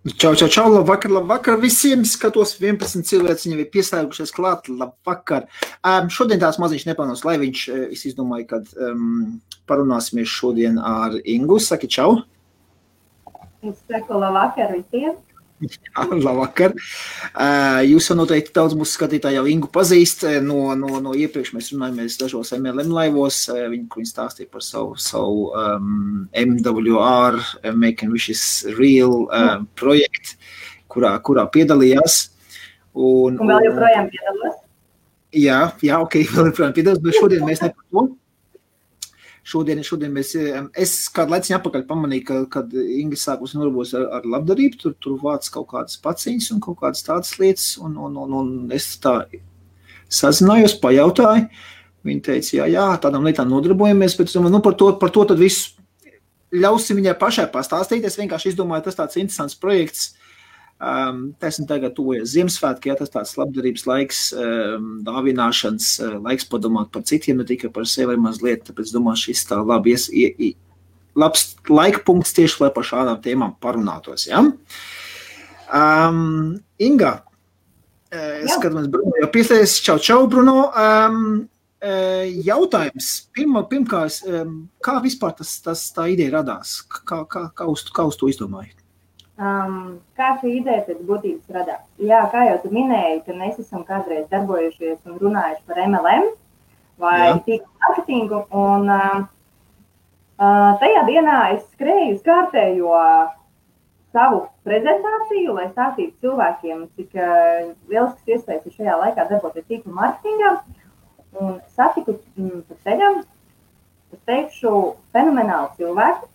Čau, labvakar visiem. Skatos, 11 cilvēks viņam ir pieslēgušies klāt. Labvakar. Šodien tās maziņš nepelnos laiviņš. Es izdomāju, kad parunāsimies šodien ar Ingu. Saki čau. Es saku labvakar visiem. Jā, labvakar. Jūs jau noteikti daudz mūsu skatītāji jau Ingu pazīst. No iepriekš mēs runājamies dažos MLM laivos. Viņi stāstīja par savu MWR, Making Wishes Real projektu, kurā piedalījās. Un vēl joprojām piedalos? Jā, ok, vēl joprojām piedalos, bet šodien mēs ne par to. Šodien es kādu laiciņu atpakaļ pamanīju, kad Inga sākus nodarbojas ar labdarību, tur vāc kaut kādas paciņas un kaut kādas tādas lietas, un es tā sazinājos, pajautāju. Viņa teica, jā, tādām lietām nodarbojamies, bet es domāju, par to tad visu ļausim viņai pašai pastāstīt. Es vienkārši izdomāju, tas tāds interesants projekts. Taisn tagad tuvojas Ziemassvētki, ja tas tāds labdarības laiks, dāvināšanas laiks padomāt par citiem, ne tikai par sevi mazliet, tāpēc domāju, šis tā labs laika punkts tieši, lai par šādām tēmām parunātos, ja? Inga, skatāmies, Bruno, jau pieslēdzies, čau, Bruno. Jautājums, pirmkārt, kā vispār tā ideja radās? Kā uz to izdomāji? Kā šī ideja pēc būtības radās? Jā, kā jau tu minēji, ka mēs esam kādreiz darbojušies un runājuši par MLM vai tīklu marketingu, un tajā dienā es skrēju uz kārtējo savu prezentāciju, lai stāstītu cilvēkiem, cik lielisks iespējas ir šajā laikā darboties tīklu marketingā, un satiku pa ceļam, es teikšu, fenomenālu cilvēku,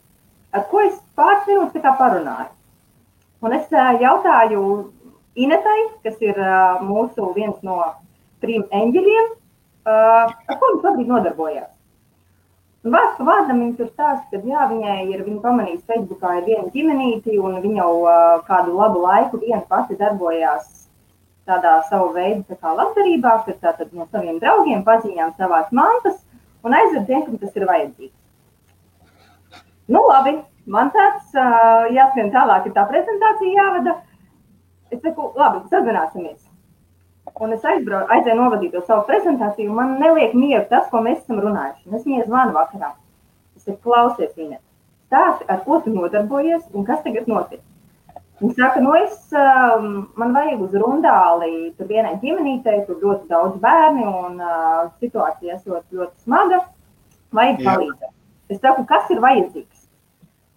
ar ko es pāris minūtes tā kā parunāju. Un es jautāju Inetai, kas ir mūsu viens no 3 eņģeļiem, ar ko viņš šobrīd nodarbojās. Un vārds pa vārdam viņa tur stāsta, ka jā, viņa pamanījis Facebookā ir viena ģimenīti, un viņa jau kādu labu laiku viena pati darbojās tādā savu veidu tā kā labdarībā, kad tātad no saviem draugiem paziņām savās mantas un aizved tiem, kam tas ir vajadzīgs. Nu labi. Man tāds jāskrien tālāk, ir tā prezentācija jāvada. Es saku, labi, sazināsimies. Un es aizēju novadīt to savu prezentāciju, un man neliek mieru tas, ko mēs esam runājuši. Un es viņai zvanu vakarā. Es saku, klausies, Inet, stāsti, ar ko tu nodarbojies un kas tagad notiek. Viņa saka, man vajag uz rundāli, tur vienai ģimenītei, tur ļoti daudz bērni, un situācija esot ļoti smaga, vajag palīdzēt. Es saku, kas ir vajadzīgs?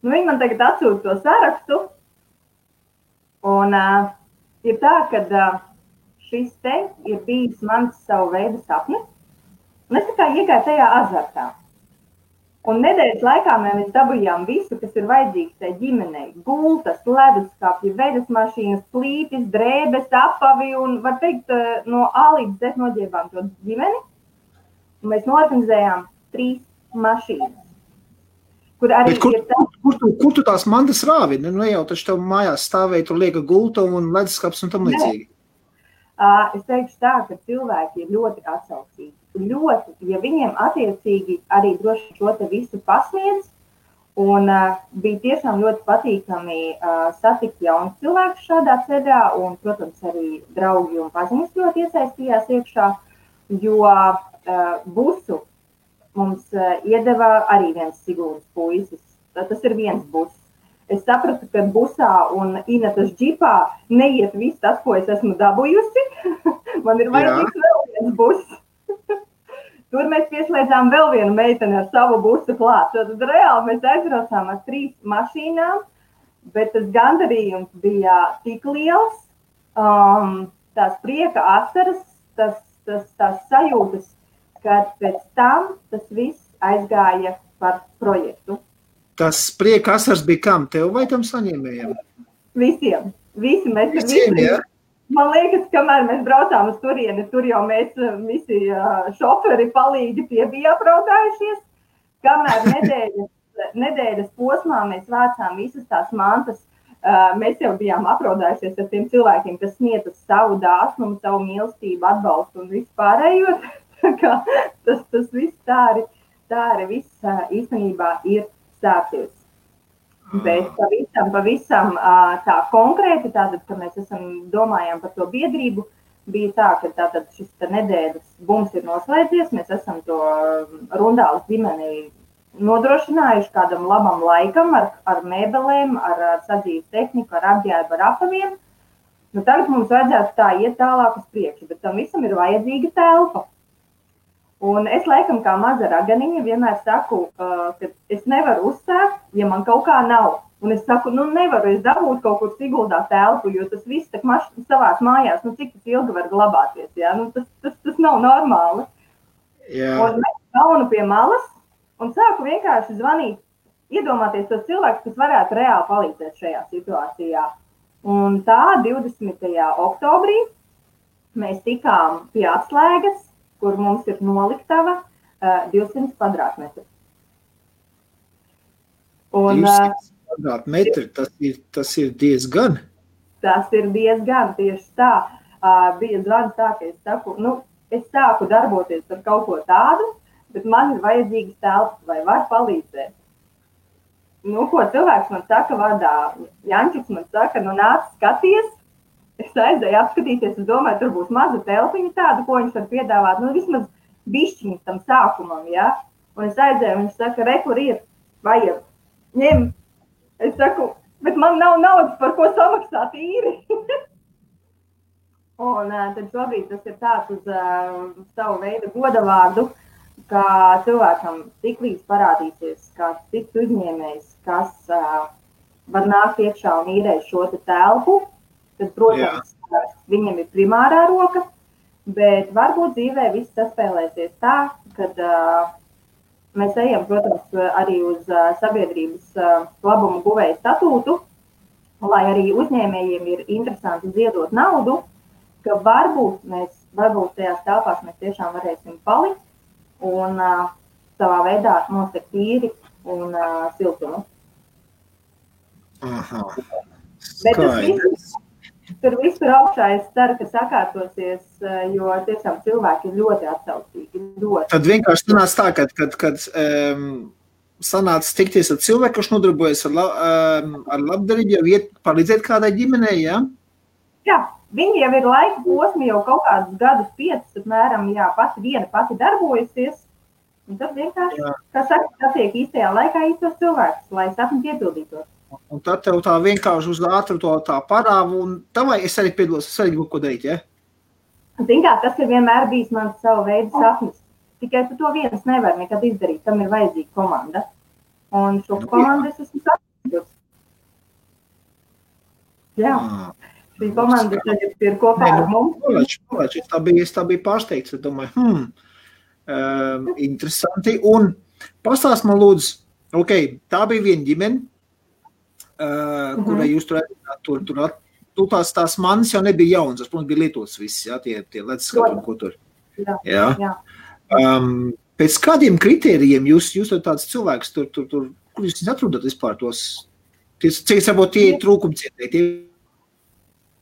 Viņi man tagad atsūta to sarakstu, un ir tā, ka šis te ir bijis mans savu veidu sapnis, un es tā kā iegāju tajā azartā. Un nedēļas laikā mēs dabujām visu, kas ir vajadzīgs tai ģimenei. Gultas, leduskapji, veļas mašīnas, plītis, drēbes, apavi, un var teikt, no A līdz Z noģēbām to ģimeni. Un mēs norganizējām 3 mašīnas. Kur arī kur tu tās mantas rāvi? Nu jau taču tev mājās stāvēja, tur lieka gulta un leduskaps un tam līdzīgi. Es teikšu tā, ka cilvēki ir ļoti atsaucīgi. Ļoti, ja viņiem attiecīgi arī droši šo te visu pasniedz, un bija tiešām ļoti patīkami satikt jaunus cilvēkus šādā ceļā, un, protams, arī draugi un paziņas ļoti iesaistījās iekšā, jo busu mums iedeva arī viens Siguldas puisis. Tas ir viens bus. Es sapratu, ka busā un Inetas džipā neiet viss tas, ko es esmu dabūjusi. Man ir vajadzīgs vēl viens bus. Tur mēs pieslēdzām vēl vienu meiteni ar savu busu klāt. Tad reāli mēs aizbraucām ar 3 mašīnām, bet tas gandarījums bija tik liels, tās prieka asaras, tās sajūtas, kad pēc tam tas viss aizgāja par projektu. Tas prieka asars bija kam? Tev vai tam saņēmējiem? Visiem. Visi mēs visiem, jā? Man liekas, kamēr mēs braucām uz turieni, tur jau mēs visi šoferi palīgi bija apraudājušies. Kamēr nedēļas posmā mēs vācām visas tās mantas, mēs jau bijām apraudājušies ar tiem cilvēkiem, kas sniedz savu dāsnumu, savu mīlestību, atbalstu un vispārējo. Tas viss tā arī viss īstenībā ir sācies. Bet pavisam tā konkrēti, tātad, ka mēs domājām par to biedrību, bija tā, ka tātad šis nedēļas bums ir noslēdzies, mēs esam to Rundāles ģimeni nodrošinājuši kādam labam laikam ar mēbelēm, ar sadzīves tehniku, ar apģērbu, ar apaviem. Nu, tagad mums vajadzētu tā iet tālāk uz priekšu, bet tam visam ir vajadzīga telpa. Un es laikam kā maza raganiņa vienmēr saku, ka es nevaru uzsākt, ja man kaut kā nav. Un es saku, nevaru es dabūt kaut kur Siguldā telpu, jo tas viss tak savās mājās, cik tas ilgi var glabāties, jā? Tas nav normāli. Jā. Un mēs kaunu pie malas un sāku vienkārši zvanīt, iedomāties tos cilvēkus, kas varētu reāli palīdzēt šajā situācijā. Un tā 20. oktobrī mēs tikām pie atslēgas, kur mums ir noliktava 200 kvadrātmetru. 200 kvadrātmetri, tas ir diezgan? Tas ir diezgan, tieši tā. Bija zvans tā, ka es saku, es sāku darboties ar kaut ko tādu, bet man ir vajadzīgas telpas, vai var palīdzēt. Ko cilvēks man saka vārdā? Jančiks man saka, nāc skaties. Es aizēju apskatīties, es domāju, tur būs maza telpiņa tāda, ko viņš var piedāvāt, vismaz bišķiņas tam sākumam, ja? Un es aizēju, viņš saka, kur ir, vajag, ņem. Es saku, bet man nav naudas, par ko samaksāt īri. Un tad šobrīd tas ir tāds uz savu veidu godavārdu, ka cilvēkam tiklīdz parādīsies kāds cits uzņēmējs, kas var nākt iekšā un īrēt šo te telpu, tad, protams, viņam ir primārā roka, bet varbūt dzīvē viss saspēlēsies tā, kad mēs ejam, protams, arī uz sabiedrības labumu guvēju statūtu, lai arī uzņēmējiem ir interesanti ziedot naudu, ka varbūt tajās telpās mēs tiešām varēsim palikt un savā veidā nosegt īri un siltumu. Aha. Bet tur viss ir augšā, es ceru, ka sakārtosies, jo tiešām cilvēki ir ļoti atsaucīgi. Tad vienkārši sanāca tā, kad sanāca tikties ar cilvēku, kas nodarbojas ar labdarību, jau iet palīdzēt kādai ģimenei, jā? Jā, viņi jau ir laika posmi, jau kaut kādus gadus 5, apmēram, jā, pati darbojusies. Un tad vienkārši, kā saka, satiek īstajā laikā īstos cilvēkus, lai sapni piepildītos. Un tad tev tā vienkārši uz ātru to tā parāvu, un tavai es arī piedalos, es arī kaut ko darīt, ja? Zin kā, tas ir vienmēr bijis mans savu veidu sapnis. Tikai tu to viens nevar nekad izdarīt, tam ir vajadzīga komanda. Un šo komandu es esmu sapnis. Jā, šī komanda tagad ir kopā ar mums. Tā bija pārsteigts, es domāju, interesanti. Un pastāst man lūdzu, tā bija viena ģimene, kurai jūs tur tās manis jau nebija jauns, tas, protams, bija lietots viss, jā, tie ledskati un ko tur. Jā. Pēc kādiem kritērijiem jūs tāds cilvēks tur, kur jūs atrodat vispār tos, cik varbūt tie trūkumcietēji?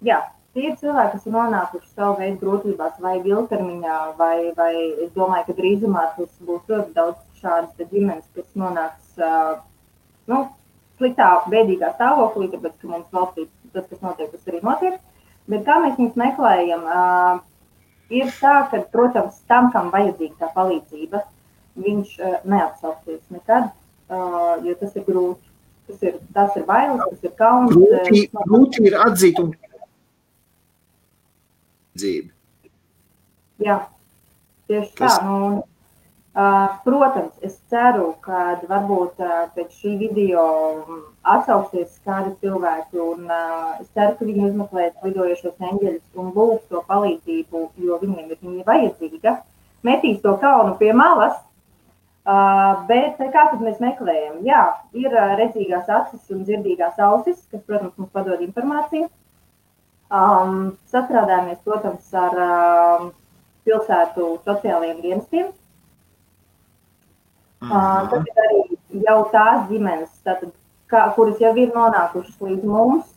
Jā, tie ir cilvēki, kas ir nonākuši savu veidu grūtībās vai ilgtermiņā, vai es domāju, ka drīzumā tas būs ļoti daudz šādas ģimenes, kas nonāks, sliktā, bēdīgā stāvoklī, tāpēc, ka mums valstī tas, kas notiek, tas arī notiek. Bet kā mēs viņus meklējam, ir tā, ka, protams, tam, kam vajadzīga tā palīdzība, viņš neatsauksies nekad, jo tas ir grūti. Tas ir bailes, tas ir kauns. Grūti ir atzīt un dzīvi. Jā, tieši tā. Protams, es ceru, ka varbūt pēc šī video atsauksies kādi cilvēki un es ceru, ka viņi uzmeklēs lidojošos eņģeļus un lūgs to palīdzību, jo viņiem ir viņa vajadzīga. Metīs to kaunu pie malas, bet kā tad mēs meklējam? Jā, ir redzīgās acis un dzirdīgās ausis, kas, protams, mums padod informāciju. Sastrādājamies, protams, ar pilsētu sociālajiem dienestiem. Tad ir arī jau tās ģimenes, tātad, kuras jau ir nonākušas līdz mums,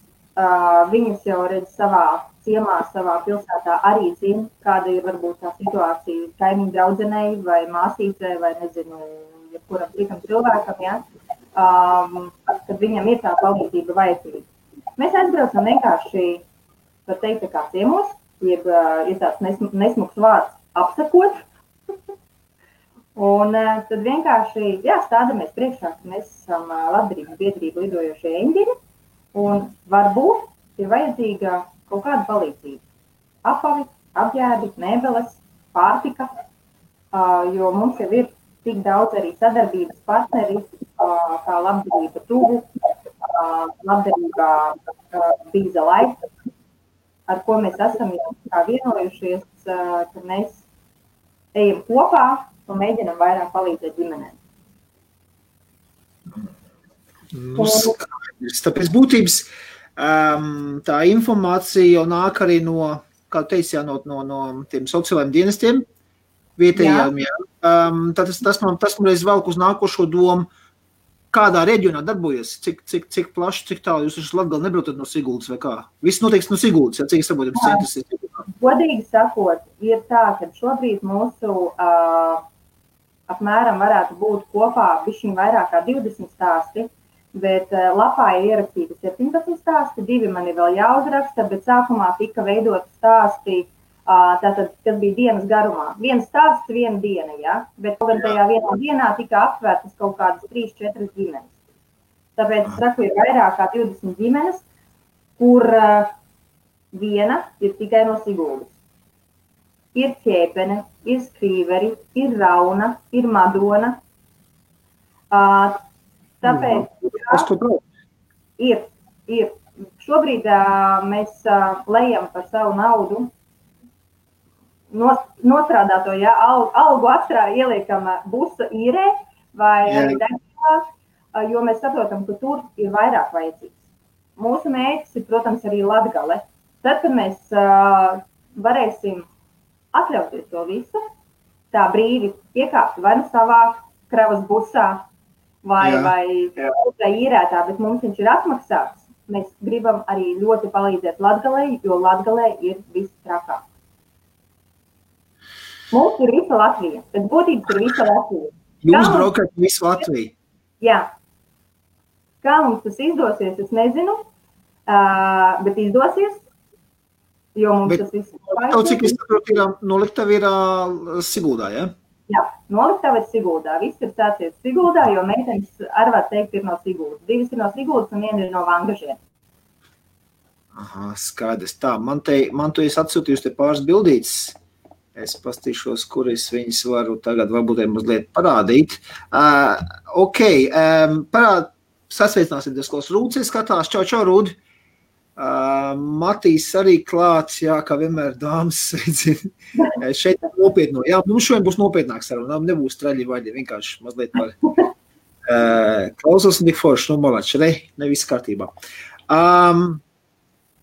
viņas jau redz savā ciemā, savā pilsētā arī zina, kāda ir varbūt tā situācija kaimiņu draudzenei vai māsīcei vai nezinu, jebkuram citam cilvēkam, ja? kad viņam ir tā palīdzība vajadzīga. Mēs aizbraucam vienkārši, var teikt, kā ciemos, jeb ir tāds nesmuks vārds apsakot. Un tad vienkārši, stādamies priekšā, ka mēs esam labdarības biedrība lidojošie eņģeļi, un varbūt ir vajadzīga kaut kāda palīdzība. Apavi, apģērbi, mēbeles, pārtika, jo mums jau ir tik daudz arī sadarbības partneri, kā labdarība tuvu, labdarība Bīza Laika, ar ko mēs esam vienojušies, ka mēs ejam kopā un mēģinam vairāk palīdzēt ģimenēm. Tāpēc būtības tā informācija jau nāk arī no, kā teici, no tiem sociālajiem dienestiem, vietējām, tas man reiz velk uz nākošo domu, kādā reģionā darbojas, cik plaši, cik tālu jūs esat Latgali nebraucat no Siguldas vai kā? Viss notiks no Siguldas, cik saprotam centrs ir? Godīgi sakot, ir tā, ka šobrīd mūsu apmēram varētu būt kopā bišķiņ vairāk kā 20 stāsti, bet lapā ir ierakstīti 17 stāsti, 2 man ir vēl jāuzraksta, bet sākumā tika veidot stāsti, tātad, kas bija dienas garumā. Viens stāsts, viena diena, ja? Bet gan tajā vienā dienā tika aptvērtas kaut kādas 3-4 ģimenes. Tāpēc, saku, ir vairāk kā 20 ģimenes, kur viena ir tikai no Siguldas. Ir Ķēpene, ir Skrīveri, ir Rauna, ir Madona. Tāpēc, ir. Šobrīd mēs lejam par savu naudu, nostrādāto, algu ieliekam busa īrē vai degvielā, jo mēs saprotam, ka tur ir vairāk vajadzīgs. Mūsu mērķis ir, protams, arī Latgale. Tad, kad mēs varēsim atļauties to visu, tā brīvi iekāpt vai nu savā kravas busā vai īrētā, bet mums viņš ir atmaksāts. Mēs gribam arī ļoti palīdzēt Latgalei, jo Latgalē ir viss trakāk. Mums ir visa Latvija, bet būtības ir visa Latvija. Jūs braukat visu Latviju? Jā. Kā mums tas izdosies, es nezinu, bet izdosies, jo mums tas viss ir. Cik es saprotu, noliktava ir Siguldā, ja? Jā, noliktava ir Siguldā. Viss ir sācies Siguldā, jo meitenes arī var teikt ir no Siguldas. 2 ir no Siguldas un 1 ir no Vangažiem. Aha, skaidrs. Tā, man tu esi atsūtījusi te pāris bildītes. Es pastīšos, kuras viņas varu tagad varbūt mazliet parādīt. Sasveicināsim diezkos Rūdzi, skatās. Čau, Rūdi. Matīs arī klāts, kā vienmēr dāmas sveicina. Šeit nopietno. Jā, mums šodien būs nopietnāk saruna, nebūs traļi vaļi, vienkārši mazliet par klausos un tik forši, malači, ne viss kārtībā.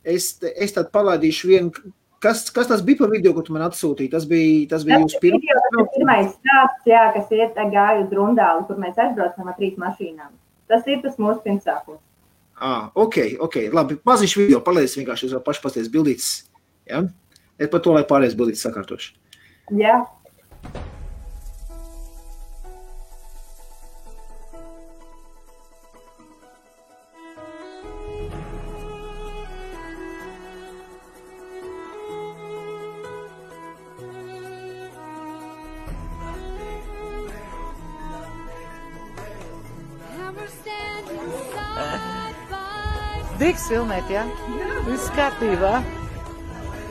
Es tad palaidīšu vienu. Kas tas bija par video, ko tu man atsūtīji? Tas bija jūsu pirmais stāsts, kas iet gāju uz Rundāli, kur mēs aizbraucam ar 3 mašīnām. Tas ir tas mūsu pirmsākums. Ok, labi. Maziņš video, palaidīs vienkārši uz paši pasties bildītes. Ja? Es par to, lai pārējais bildītes sakārtošu. Jā. Digs filmēt, jā? Viss kārtībā.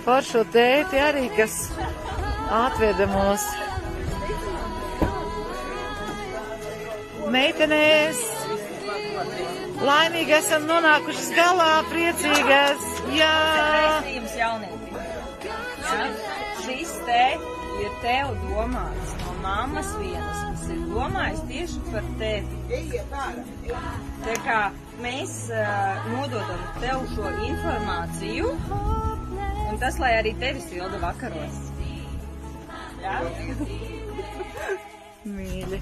Foršo tēti arī, kas atveda mūs. Meitenēs, laimīgi esam nonākušas galā, priecīgas, jā. Veistījums jaunietī. Šis te ir tev domāts no mammas vienas, kas ir domājis tieši par tevi. Tā kā mēs nododam tev šo informāciju, un tas, lai arī tevi silda vakaros. Jā? Mīļi.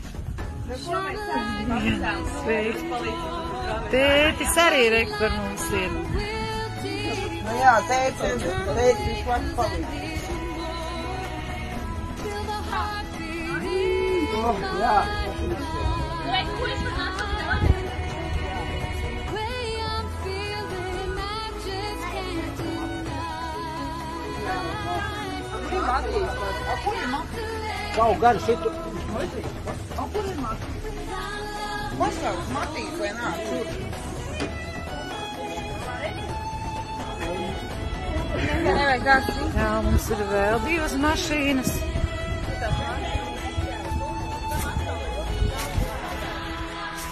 Sveiki. Tētis arī rekt par mums ir. Nu jā, tētis vispār palīdz. Jā, Kaut gan šitu. Pasaules Matīs vai nāk tur? Jā, mums ir vēl 2 mašīnas.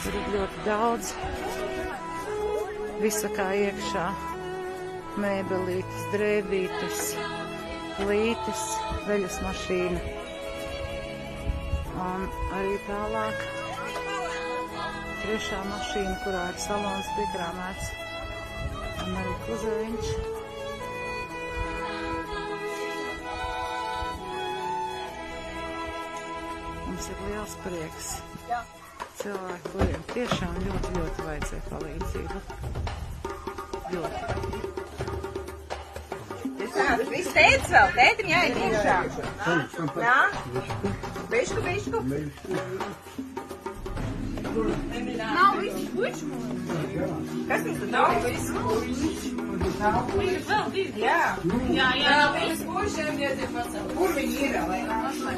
Tur ir ļoti daudz. Visa kā iekšā. Mēbelītes, drēbītes, plītes, veļas mašīna. Un arī tālāk 3. mašīna, kurā ir salons piekrāmēts. Un arī kuzeviņš. Mums ir liels prieks. Cilvēki, kuriem tiešām ļoti, ļoti vajadzēja palīdzību. Ļoti. Viss tētis vēl, tētim jāiet iekšā. Jā? Bišku. Nav visu pušu. Kas mums tur nav visu pušu? Vēl 2. Jā. Jā, visu pušiem iedzīv pacelt. Kur viņi ir, lai nāšai?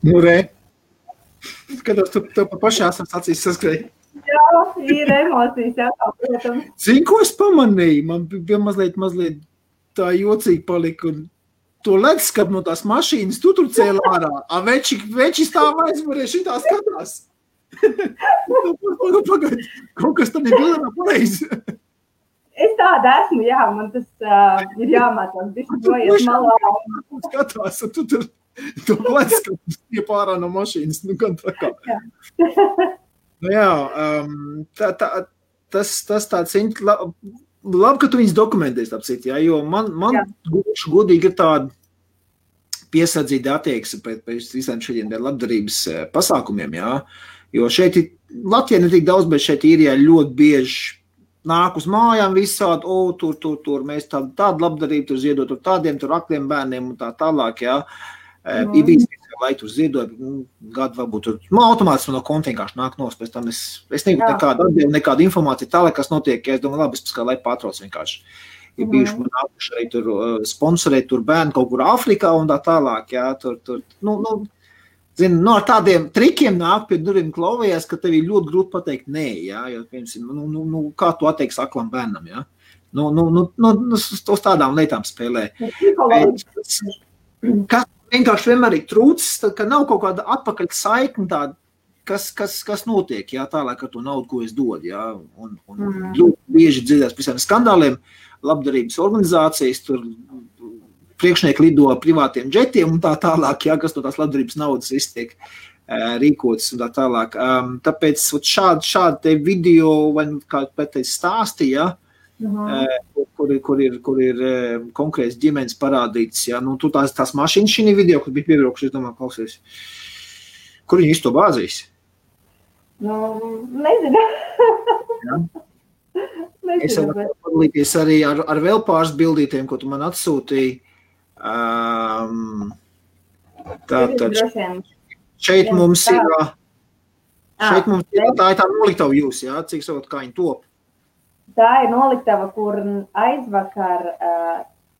Nu, re. Skatos, tu pa pašās acīs saskrēji. Jā, ir emocijas, jā, protams. Zini, ko es pamanīju? Man bija mazliet tā jocīgi palika. Un to leduskapu no tās mašīnas tu tur cēla ārā. Veči stāv aizmurē šitā skatās. Pagaid, kaut kas tam ir bildā pareizi. Es tāda esmu, jā, man tas ir jāmācās, bišķi dojies malā. Skatās, un tu tur to leduskapu stiep ārā no mašīnas. Nu, gan tā kā. Nu jā, tas tāds labi, ka tu viņus dokumentēsi, apcīt, jā, jo man godīgi ir tāda piesardzīga attieksme pēc visiem šiem labdarības pasākumiem, jā, jo šeit Latvijā ne tik daudz, bet šeit Īrijā ļoti bieži nāk uz mājām visādi, tur, mēs tādu labdarību tur ziedot, tur tādiem, tur akliem bērniem un tā tālāk, jā. Ir bijis, lai tur ziedot, gadu varbūt tur, automātiski no konta vienkārši nāk nos, pēc tam es negribu nekādu informāciju tālāk, kas notiek, ja es domāju, labi, es lai patrauc vienkārši. Ir bijuši man nākuši arī tur sponsorēt tur bērnu kaut kur Āfrikā un tā tālāk, jā, tur, ar tādiem trikiem nāk pie durvīm klauvējās, ka tev ir ļoti grūti pateikt nē, jā, jo, piemēram, kā tu atteiksi aklam bērnam, jā, uz tādām lietām spēlē. Kas vienkārši vienmēr ir trūcis, ka nav kaut kāda atpakaļ saikne tāda, kas notiek, jā, tālāk ar to naudu, ko es dodu, jā, un ļoti bieži dzirdēs visiem skandāliem, labdarības organizācijas, tur priekšnieki lido privātiem džetiem un tā tālāk, jā, kas no tās labdarības naudas viss tiek rīkotas un tā tālāk. Tāpēc šādi te video, vai kā pēc stāstīja, kur ir konkrēts ģimenes parādīts, jā, nu, tu tās mašīnas šī video, kur bija piebraukuši, es domāju, klausies, kur viņi visu to bāzīs? Nu, nezinu. Jā. Es varu padalīties arī ar vēl pāris bildītiem, ko tu man atsūtīji. Tātad šeit mums ir tā ir tā noliktava jūs, jā, cik savot, kā viņi top? Tā ir noliktava, kur aizvakar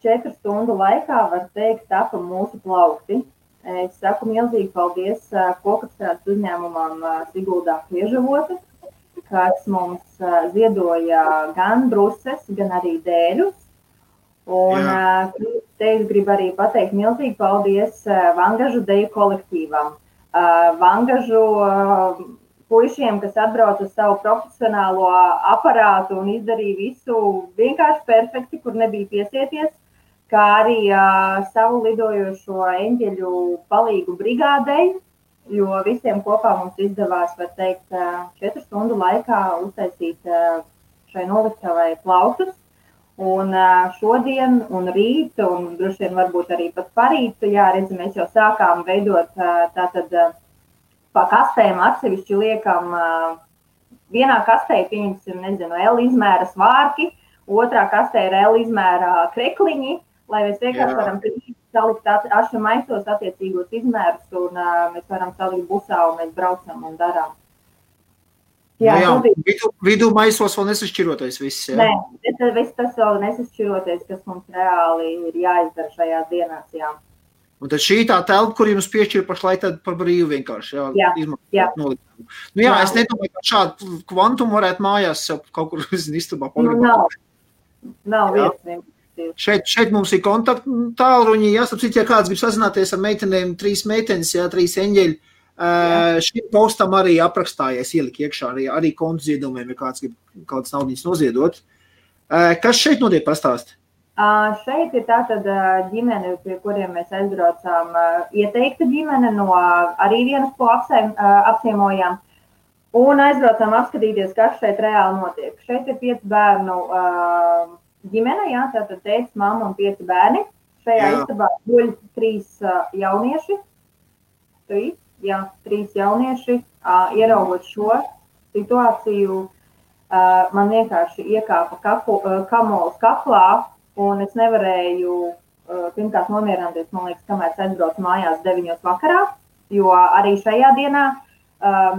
4 stundu laikā, var teikt, tapa mūsu plaukti. Es saku milzīgi paldies kokapstrādes uzņēmumam Siguldā Kliežavote, kas mums ziedoja gan bruses, gan arī dēļus. Un te es gribu arī pateikt milzīgi paldies Vangažu deju kolektīvam. Vangažu puišiem, kas atbrauc uz savu profesionālo aparātu un izdarīja visu vienkārši perfekti, kur nebija piesieties, kā arī savu lidojošo eņģeļu palīgu brigādei, jo visiem kopā mums izdevās, var teikt, 4 stundu laikā uztaisīt šai noliktavai plauktus. Un šodien un rīt, un droši vien varbūt arī pat parīt, jā, redzi, mēs jau sākām veidot tātad pa kastēm atsevišķi liekam, vienā kastē, pieņemsim, nezinu, L izmēra svārki, otrā kastē ir L izmēra krekliņi, lai mēs vienkārši varam salikt ašu maisos attiecīgos izmērus, un mēs varam salikt busā, un mēs braucam un darām. Jā, vidū maisos vēl nesašķirotais viss, jā? Nē, viss tas vēl nesašķirotais, kas mums reāli ir jāizdara šajās dienās, jā. Un tad šī tā telpa, kur jums piešķir pašlaik tad par brīvu vienkārši, izmaksāt nolikumu. Nu jā, es nedomāju, ka šādu kvantumu varētu mājās kaut kur istabā pagribāt. Nav vietas. Šeit mums ir kontaktu tālruņi, jāsapcīt, ja kāds grib sazināties ar meitenēm, 3 meitenes, 3 eņģeļi. Šim postam arī aprakstājies ielika iekšā arī kontu ziedojumiem, ja kāds grib kādas naudiņas noziedot. Kas šeit notiek pastāst? Šeit ir tātad ģimene, pie kuriem mēs aizbraucām, ieteikta ģimene no arī vienas, ko apciemojām, un aizbraucām apskatīties, kas šeit reāli notiek. Šeit ir 5 bērnu ģimene, jā, tātad tētis, mamma un 5 bērni. Šajā istabā guļ 3 jaunieši. 3 jaunieši, ieraugot šo situāciju, man vienkārši iekāpa kamols kaklā, un es nevarēju pirmkārt nomierināties, man liekas, kamēr es aizbraucu mājās 9 vakarā, jo arī šajā dienā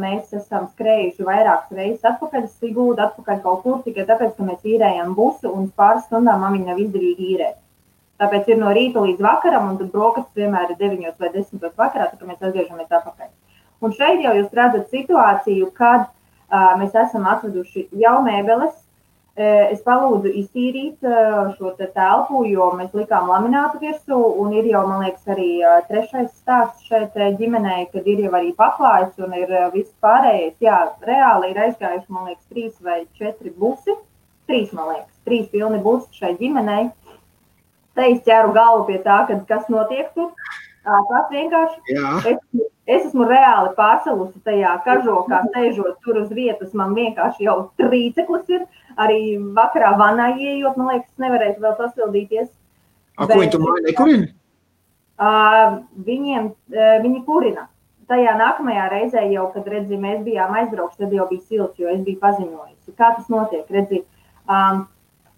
mēs esam skrējuši vairākas reizes atpakaļ, Sigūdu, atpakaļ kaut kur, tikai tāpēc, ka mēs īrējam busu, un pāris stundām man viņa nav izdevīgi īrēt. Tāpēc ir no rīta līdz vakaram, un tad brokastis vienmēr ir 9 vai 10 vakarā, tā kā mēs atgriežamies atpakaļ. Un šeit jau jūs redzat situāciju, kad mēs esam atveduši jau mēbeles. Es palūdzu iztīrīt šo telpu, jo mēs likām laminātu virsū, un ir jau, man liekas, arī 3. stāsts šeit ģimenei, kad ir jau arī paklājs un ir viss pārējais. Jā, reāli ir aizgājuši, man liekas, 3 vai 4 busi. 3, man liekas, 3 pilni busi šai ģimenei. Te es ķeru galvu pie tā, kas notiek tur. Tas vienkārši, es esmu reāli pārsalusi tajā kažokā, sēžot tur uz vietas, man vienkārši jau trīceklis ir. Arī vakarā vanā ieejot, man liekas, nevarēs vēl sasildīties. Ko viņi tur māja nekurina? Viņi kurina. Tajā nākamajā reizē jau, kad, redzi, mēs bijām aizbraukši, tad jau bija silts, jo es biju paziņojusi. Kā tas notiek, redzi?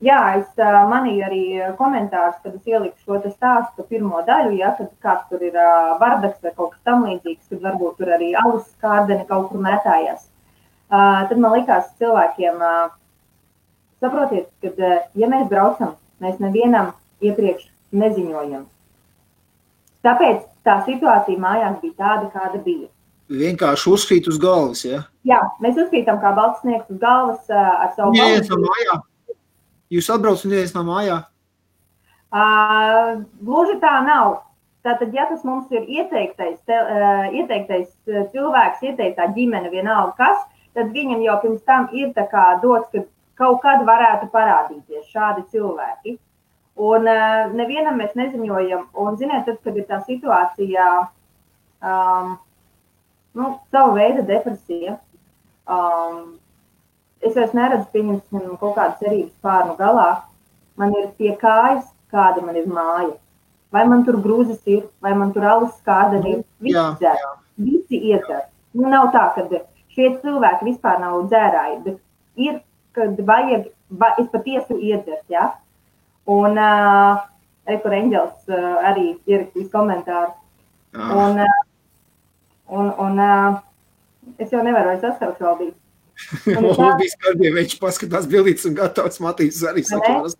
Jā, es manīju arī komentārus, kad es ieliku šo te stāstu pirmo daļu, ja, kad kāds tur ir bardaks vai kaut kas tam līdzīgs, kad varbūt tur arī alus kārdeni kaut kur mētājās. Tad man likās cilvēkiem, saprotiet, kad ja mēs braucam, mēs nevienam iepriekš neziņojam. Tāpēc tā situācija mājās bija tāda, kāda bija. Vienkārši uzkrīt uz galvas, ja? Jā, mēs uzkrītam kā balts sniegs uz galvas ar savu balvu. Jūs atbrauc un neviens nav mājā? Gluži tā nav. Tātad, ja tas mums ir ieteiktais cilvēks, ieteiktā ģimene vienalga kas, tad viņam jau pirms tam ir tā kā dots, ka kaut kad varētu parādīties šādi cilvēki. Un nevienam mēs neziņojam. Un, ziniet, tad, kad ir tā situācija, sava veida depresija, es vairs neredzu, pieņemsim, kaut kādu cerības pārnu galā. Man ir pie kājas, kāda man ir māja. Vai man tur grūzes ir, vai man tur alus kārdeni ir. Visi iedzer. Nav tā, ka šie cilvēki vispār nav dzērāji, bet ir, kad vajag, es patiesi iedzert, ja? Un kur Eņģels arī ierakstīs komentāru. Un es jau nevaru vairs saskaru šaubīt. Lūdīs kādiem viņš paskatās bildītes un gatavs Matīs arī sakāras.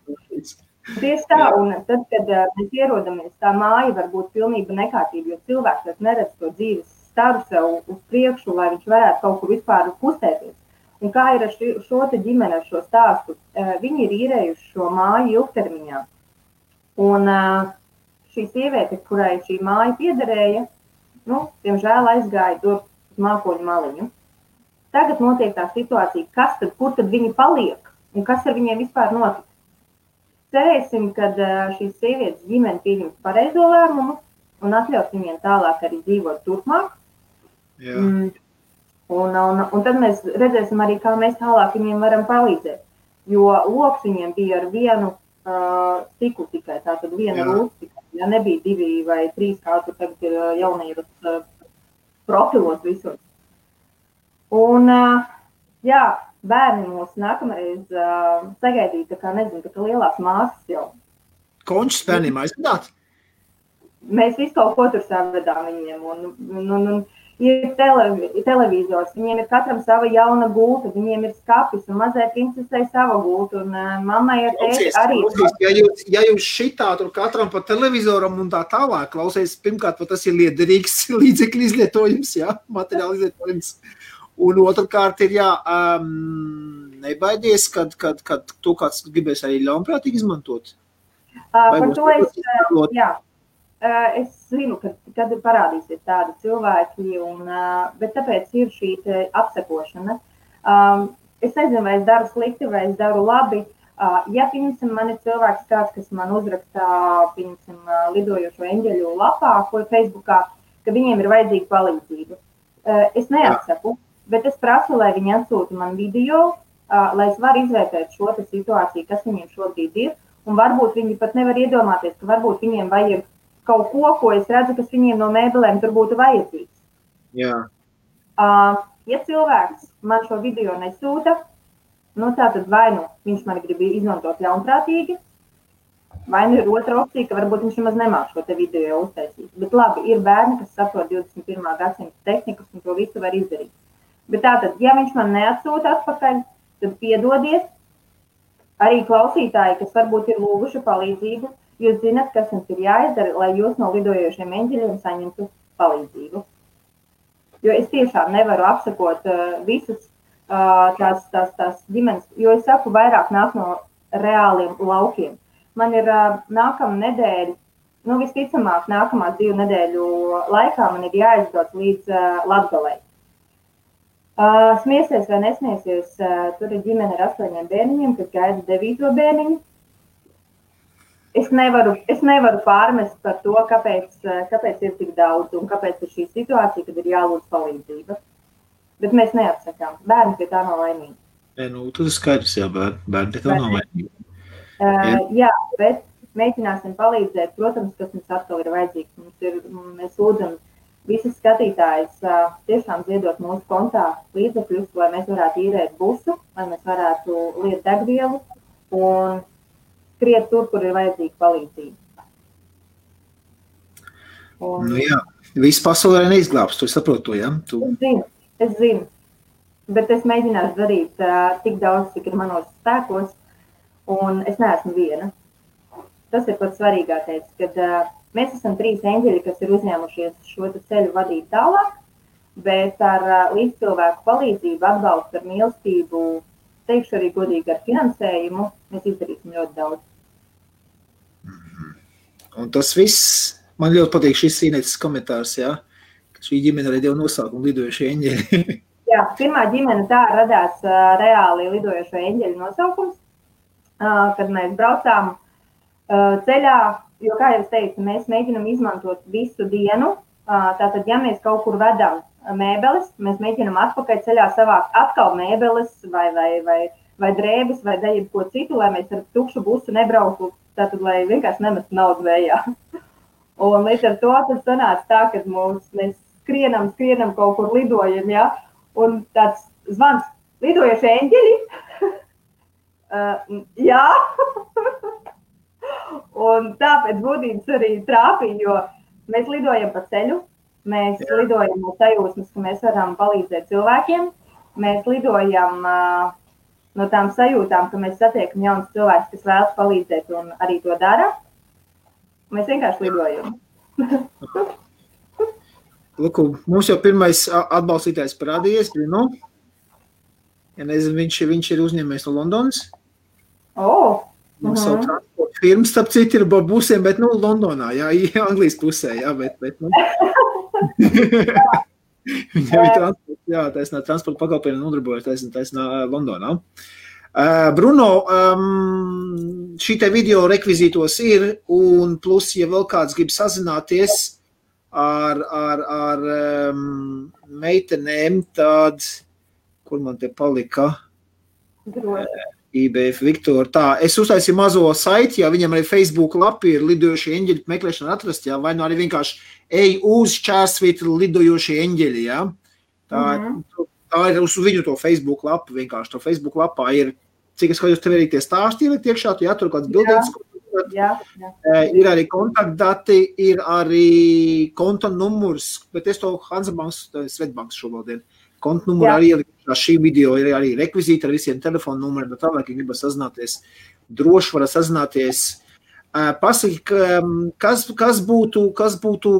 Tieši tā, un tad, kad mēs ierodamies, tā māja var būt pilnība nekārtība, jo cilvēks neredz to dzīves staru sev uz priekšu, lai viņš varētu kaut kur vispār kustēties. Un kā ir ar šo te ģimeni, ar šo stāstu, viņi ir īrējuši šo māju ilgtermiņā. Un šī sieviete, kurai šī māja piederēja, diemžēl aizgāja tur uz mākoņu maliņu. Tagad notiek tā situācija, kur tad viņi paliek un kas ar viņiem vispār notiek. Cerēsim, kad šīs sievietes ģimene pieņems pareizo lēmumu un atļaus viņiem tālāk arī dzīvot turpmāk. Un tad mēs redzēsim arī, kā mēs tālāk viņiem varam palīdzēt. Jo loks viņiem bija ar vienu stiklu tikai, tātad viena rūs tikai. Ja nebija 2 vai 3, kā tur tagad ir jaunības profilos visur. Un, bērni mūs nākamreiz sagaidīja, tā kā nezinu, tā kā lielās māsas jau. Končus bērniem aizvedāt? Mēs visu kaut ko tur savedām viņiem. Un ir televizors, viņiem ir katram sava jauna gulta, viņiem ir skapis un mazai princesei sava gulta, un mammai ar tēti arī. Ja jūs šitā tur katram pa televizoram un tā tālāk klausies, pirmkārt, tas ir liederīgs līdzekļu izlietojums, jā, materiāli izlietojums. Un otrkārt ir, jā, nebaidies, kad to kāds gribēs arī ļaunprātīgi izmantot. Par to jā. Es zinu, kad parādīsies tādi cilvēki, bet tāpēc ir šī apsekošana. Es nezinu, vai es daru slikti, vai es daru labi. Ja, piemēram, man ir cilvēks kāds, kas man uzrakstā, lidojošo eņģeļu lapā, ko Facebookā, ka viņiem ir vajadzīga palīdzība. Es neatsaku, bet es prasu, lai viņi atsūta man video, lai es varu izvērtēt šo situāciju, kas viņiem šobrīd ir, un varbūt viņi pat nevar iedomāties, ka varbūt viņiem vajag kaut ko es redzu, kas viņiem no mēbelēm tur būtu vajadzīgs. Jā. Ja cilvēks man šo video nesūta, tātad vai viņš man grib izmantot ļaunprātīgi, vai ir otra opcija, ka varbūt viņš nemaz nemāk šo te video uztaisīt. Bet labi, ir bērni, kas saprot 21. gadsimta tehnikas un to visu var izdarīt. Bet tātad, ja viņš man neatsūta atpakaļ, tad piedodiet arī klausītāji, kas varbūt ir lūguši palīdzību. Jūs zināt, kas jums ir jāizdara, lai jūs no lidojošiem eņģeļiem saņemtu palīdzību. Jo es tiešām nevaru apsakot visas tās ģimenes, jo es saku, vairāk nāk no reāliem laukiem. Man ir nākamā nedēļa, visticamāk nākamās 2 nedēļu laikā man ir jāizbrauc līdz Latgalei. Smiesies vai nesmiesies, tur ir ģimene ar 8 bērniņiem, kas gaida 9. bērniņu. Es nevaru pārmest par to, kāpēc ir tik daudz un kāpēc ir šī situācija, kad ir jālūdz palīdzība. Bet mēs neatsakām. Bērni pie tā nav laimīgi. Tas ir skaidrs, jā, bērni pie tā nav laimīgi. Jā, bet mēģināsim palīdzēt. Protams, kas mums atkal ir vajadzīgs. Mēs lūdzam visas skatītājas tiešām ziedot mūsu kontā līdzekļus, lai mēs varētu īrēt busu, lai mēs varētu liet degvielu un skriet tur, kur ir vajadzīga palīdzība. Jā, viss pasaulē neizglābs, tu saproti to, jā? Es zinu, bet es mēģināšu darīt tik daudz, cik ir manos spēkos, un es neesmu viena. Tas ir pats svarīgākais, kad mēs esam 3 eņģeļi, kas ir uzņēmušies šo ceļu vadīt tālāk, bet ar līdzcilvēku palīdzību, atbalstu ar mīlestību, teikšu arī godīgi ar finansējumu, mēs izdarīsim ļoti daudz. Un tas viss, man ļoti patīk šis Inetes komentārs, jā, ka šī ģimene arī deva nosaukumu lidojošie eņģeļi. Jā, pirmā ģimene tā radās reāli lidojošo eņģeļu nosaukums, kad mēs braucām ceļā, jo, kā jau es teicu, mēs mēģinam izmantot visu dienu, tātad, ja mēs kaut kur vedam mēbeles, mēs mēģinam atpakaļ ceļā savākt atkal mēbeles vai drēbes vai ko citu, lai mēs ar tukšu busu nebrauktu, tātad, lai vienkārši nemestu naudu vējā. Un līdz ar to tad sanāca tā, ka mēs skrienam kaut kur lidojam, ja? Un tāds zvans, lidojošie eņģeļi? Jā. Un tāpēc būtības arī trāpīja, jo mēs lidojam pa ceļu, mēs lidojam no sajūsmas, ka mēs varam palīdzēt cilvēkiem, mēs lidojam no tām sajūtām, ka mēs satiekam jaunas cilvēkus, kas vēlas palīdzēt un arī to dara. Mēs vienkārši lidojam. Luku, mums jau pirmais atbalstītājs parādījies, Bruno. Ja nezinu, viņš ir uzņēmējs no Londonas. Mums savu transporta firmu, starp citu, ir busiem, bet, Londonā, jā, Anglijas pusē, jā, bet. Viņam ir transporta, jā, taisnā transporta pakalpojumi nodarbojas taisnā Londonā. Bruno, šī te video rekvizītos ir, un plus, ja vēl kāds grib sazināties ar meitenēm, tad, kur man te palika? IBF Viktor. Tā, es uztaisīju mazo saiti, ja viņam arī Facebook lapi ir lidojošie eņģeļi meklēšana atrast, jā, vai nu arī vienkārši ej uz // lidojošie eņģeļi, jā. Tā ir uz viņu to Facebook lapu, vienkārši to Facebook lapā ir, cik es skatos, tev arī tie stāsti ielikt iekšā, tu jātur kāds bildītas, Ir arī kontaktdati, ir arī konta numurs, bet es to Hansabanks, Svetbanks šovaldien. Konta numuru arī ielikt šī video, ir arī rekvizīti ar visiem telefonu numuriem, bet tālāk, ja gribas sazināties, droši var sazināties. Pasaki, kas būtu,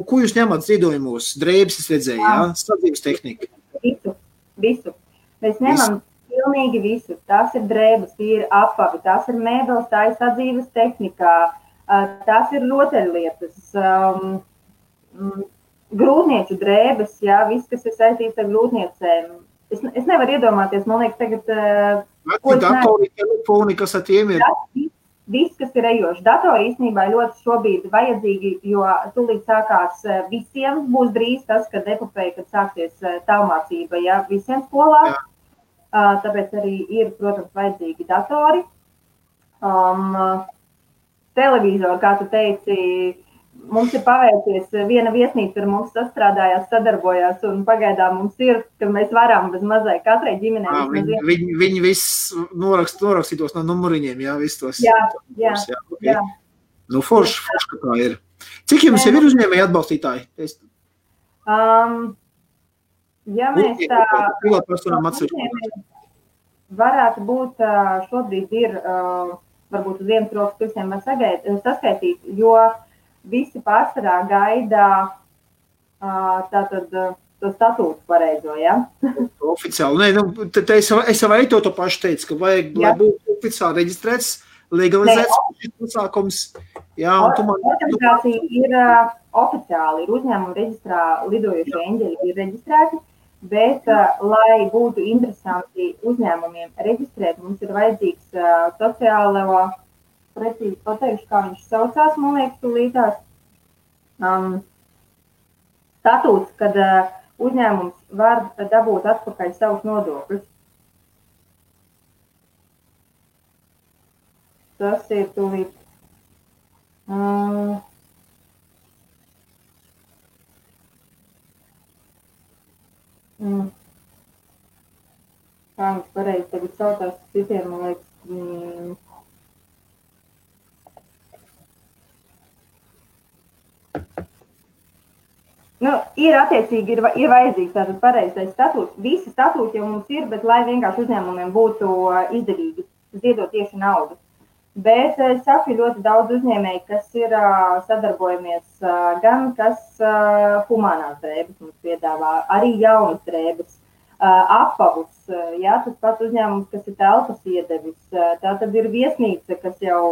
ko jūs ņemat ziedojumos? Drēbes es redzēju, jā? Sadzīves tehnika. Visu. Mēs ņemam pilnīgi visu. Tās ir drēbes, tie ir apavi, tās ir mēbeles, tā ir sadzīves tehnikā, tās ir rotaļlietas, grūtnieču drēbes, jā, viss, kas ir saistīts ar grūtniecēm. Es nevaru iedomāties, man liekas, tagad... Datori, telefoni, kas ar tiem ir? Viss, kas ir ejoši. Datori īstenībā ļoti šobrīd vajadzīgi, jo tūlīt sākās visiem, būs drīz tas, kad epopeja, kad sāksies tālmācība, ja visiem skolā. Tāpēc arī ir, protams, vajadzīgi datori. Televizori, kā tu teici, mums ir paveicies, viena viesnīca ar mums sastrādājās, sadarbojās, un pagaidām mums ir, ka mēs varam bez mazai katrai ģimenei. Viņi viss norakstītos no numuriņiem, jā, viss tos. Jā. Nu, forši, ka tā ir. Cik jums jau ir uzņēmēji atbalstītāji? Ja mēs varētu būt, šobrīd ir, varbūt uz vienas rokas pirksiem var saskaitīt, jo visi pārsvarā gaida tātad to statūtu pareizo, ja? Oficiāli. Nē, es jau arī to pašu teicu, ka vajag, lai būtu oficiāli reģistrēts, legalizēts šis pasākums. Jā, un tu man... Organizācija ir oficiāli, ir uzņēmuma reģistrā lidojušie eņģeļi ir reģistrēti, bet, lai būtu interesanti uzņēmumiem reģistrēt, mums ir vajadzīgs sociālo, precīzi pateikšu, kā viņš saucās, man liekas, tūlītās, statūts, kad uzņēmums var dabūt atpakaļ savus nodokļus. Tas ir tūlīt. Kā viņš pareizi tagad saucās citiem, man liekas, ir attiecīgi, ir vajadzīgs tātad pareizais statūts. Visi statūti jau mums ir, bet lai vienkārši uzņēmumiem būtu izdevīgi ziedot tieši naudu. Bet es saku ļoti daudz uzņēmēji, kas ir sadarbojamies gan, kas humānās drēbes mums piedāvā, arī jaunas drēbes, apavus, jā, tas pats uzņēmums, kas ir telpas iedevis, tā tad ir viesnīca, kas jau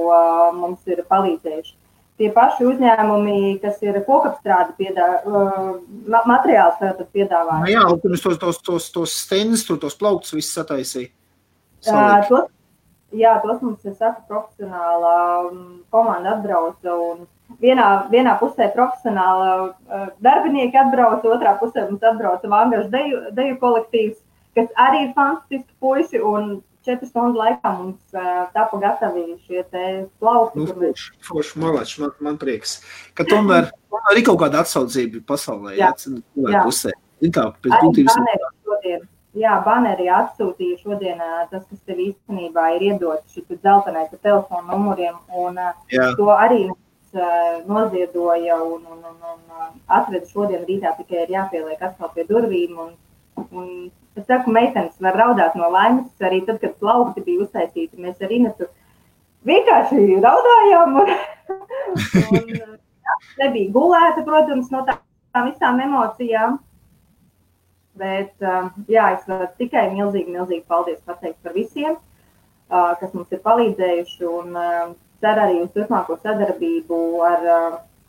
mums ir palīdzējuši. Tie paši uzņēmumi, kas ir kokapstrādi materiāls tātad piedāvā. Jā, un pirms tos stendus, tos plauktus viss sataisīja. Tos mums, es saku, profesionāla komanda atbrauca, un vienā pusē profesionāla darbinieki atbrauca, otrā pusē mums atbrauca Vangažu deju kolektīvs, kas arī ir fantastiski puisi, un 4 stundu laikā mums tapa gatavi šie te plaukti. Forši, malači, man prieks. Ka tomēr arī kaut kāda atsaucība pasaulē, pusē. Baneri atsūtīja šodien tas, kas tev īstenībā ir iedots šis dzeltenais ar telefonu numuriem, un to arī noziedoja un atveda šodien rītā, tikai ir jāpieliek atkal pie durvīm, un es saku, meitenes var raudāt no laimes, arī tad, kad plaukti bija uztaisīti, mēs ar Inetu vienkārši raudājām, un nebija gulēta, protams, no tām visām emocijām, bet, es varu tikai milzīgi paldies pateikt par visiem, kas mums ir palīdzējuši, un cer arī uz turpmāko sadarbību ar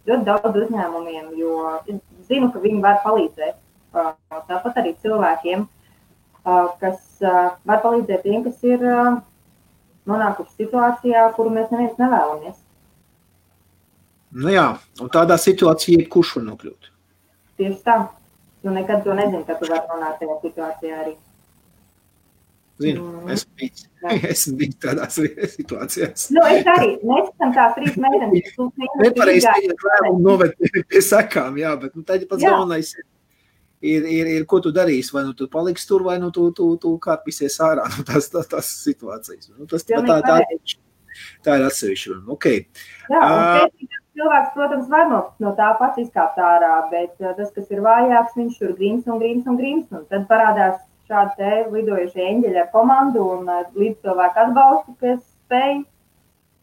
ļoti daudz uzņēmumiem, jo zinu, ka viņi var palīdzēt, tāpat arī cilvēkiem, kas var palīdzēt tiem, kas ir nonākuši situācijā, kuru mēs neviens nevēlamies. Nu jā, un tādā situācijā jebkurš var nokļūt. Tieši tā. Tu nekad to nezini, ka tu vari nonākt tajā situācijā arī. Zinu, esmu bijis tādās situācijās. Es arī. Mēs esam tās 3 meitenes. Nepareizi teikt lēmumu noved pie sekām, jā, bet tad pats galvenais ir, ko tu darīsi, vai nu tu paliksi tur, vai nu tu kāpīsies ārā no tās situācijas. Nu, tas tā Tā ir atsevišķa. Okay. Jā, un cilvēks, protams, var no tā pats izkāpt ārā, bet tas, kas ir vājāks, viņš tur grims. Un tad parādās šādi te lidojušie eņģeļi ar komandu un līdz cilvēku atbalstu, kas spēj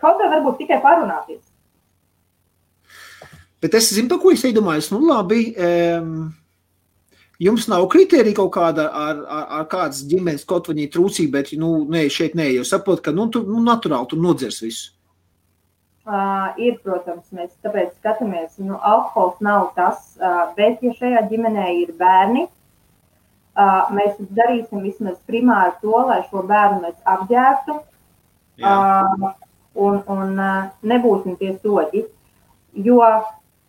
kaut kā varbūt tikai parunāties. Bet es zinu, par ko es iedomājos. Nu, labi, jums nav kritērija kaut kāda ar kādas ģimenes kaut vaņī trūcība, bet, šeit nē, jo saprot, ka, naturāli tur nodzers visu. Ir, protams, mēs tāpēc skatāmies, alkohols nav tas, bet, ja šajā ģimenē ir bērni, mēs darīsim vismaz primāri to, lai šo bērnu mēs apģērbtu un nebūsim tie soļi, jo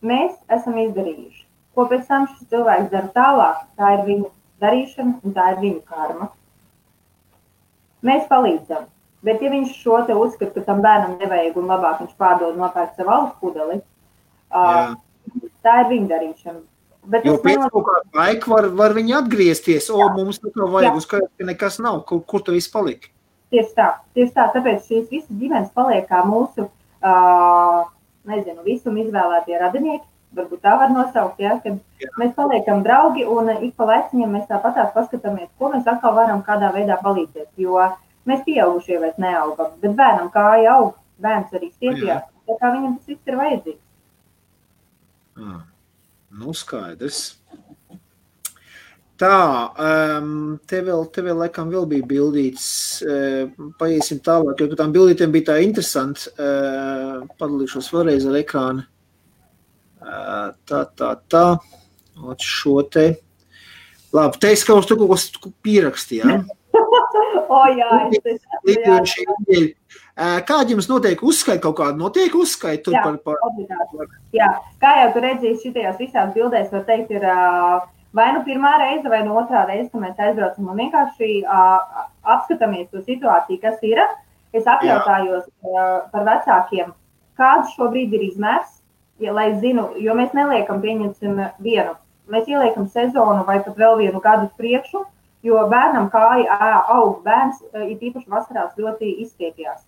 mēs esam izdarījuši. Ko pēc tam šis cilvēks dara tālāk, tā ir viņa darīšana un tā ir viņa karma. Mēs palīdzam, bet ja viņš šo te uzskata, ka tam bērnam nevajag un labāk viņš pārdod nopērk savu alus pudeli, tā ir viņa darīšana. Bet jo pēc kaut kādu laiku var viņi atgriezties, mums nekā vajag uzskatīt, ka nekas nav, kur tu viss palika. Tieši tā, tāpēc šīs visas ģimenes paliek kā mūsu, visum izvēlētie radinieki, varbūt tā var nosaukt, kad mēs paliekam draugi un ik pa laiciņiem mēs tāpatās paskatāmies, ko mēs atkal varam kādā veidā palīdzēt, jo mēs pieaugušie vairs neaugam, bet bērnam kāja aug, bērns arī stiepjās, tā kā viņam tas viss ir vajadzīgs. Skaidrs. Tā, te vēl laikam vēl bija bildīts, paiesim tālāk, jo par tām bildītēm bija tā interesanti, padalīšos vēlreiz ar ekrānu. Tā, šo te. Labi, teiks, ka uz tu kaut ko pierakstīja. Jā. Kādi jums notiek uzskaiti kaut kādu? Notiek uzskaiti tur par... Jā, kā jau tu redzēji šitajās visās bildēs, var teikt, ir vai nu pirmā reize, vai nu otrā reize, ka mēs aizbraucam un vienkārši apskatāmies to situāciju, kas ir. Es apjautājos par vecākiem, kāds šobrīd ir izmērs, lai zinu, jo mēs neliekam pieņemsim vienu. Mēs ieliekam sezonu vai pat vēl vienu gadu uz priekšu, jo bērnam kāja aug bērns, ir īpaši vasarās ļoti izstiepjās.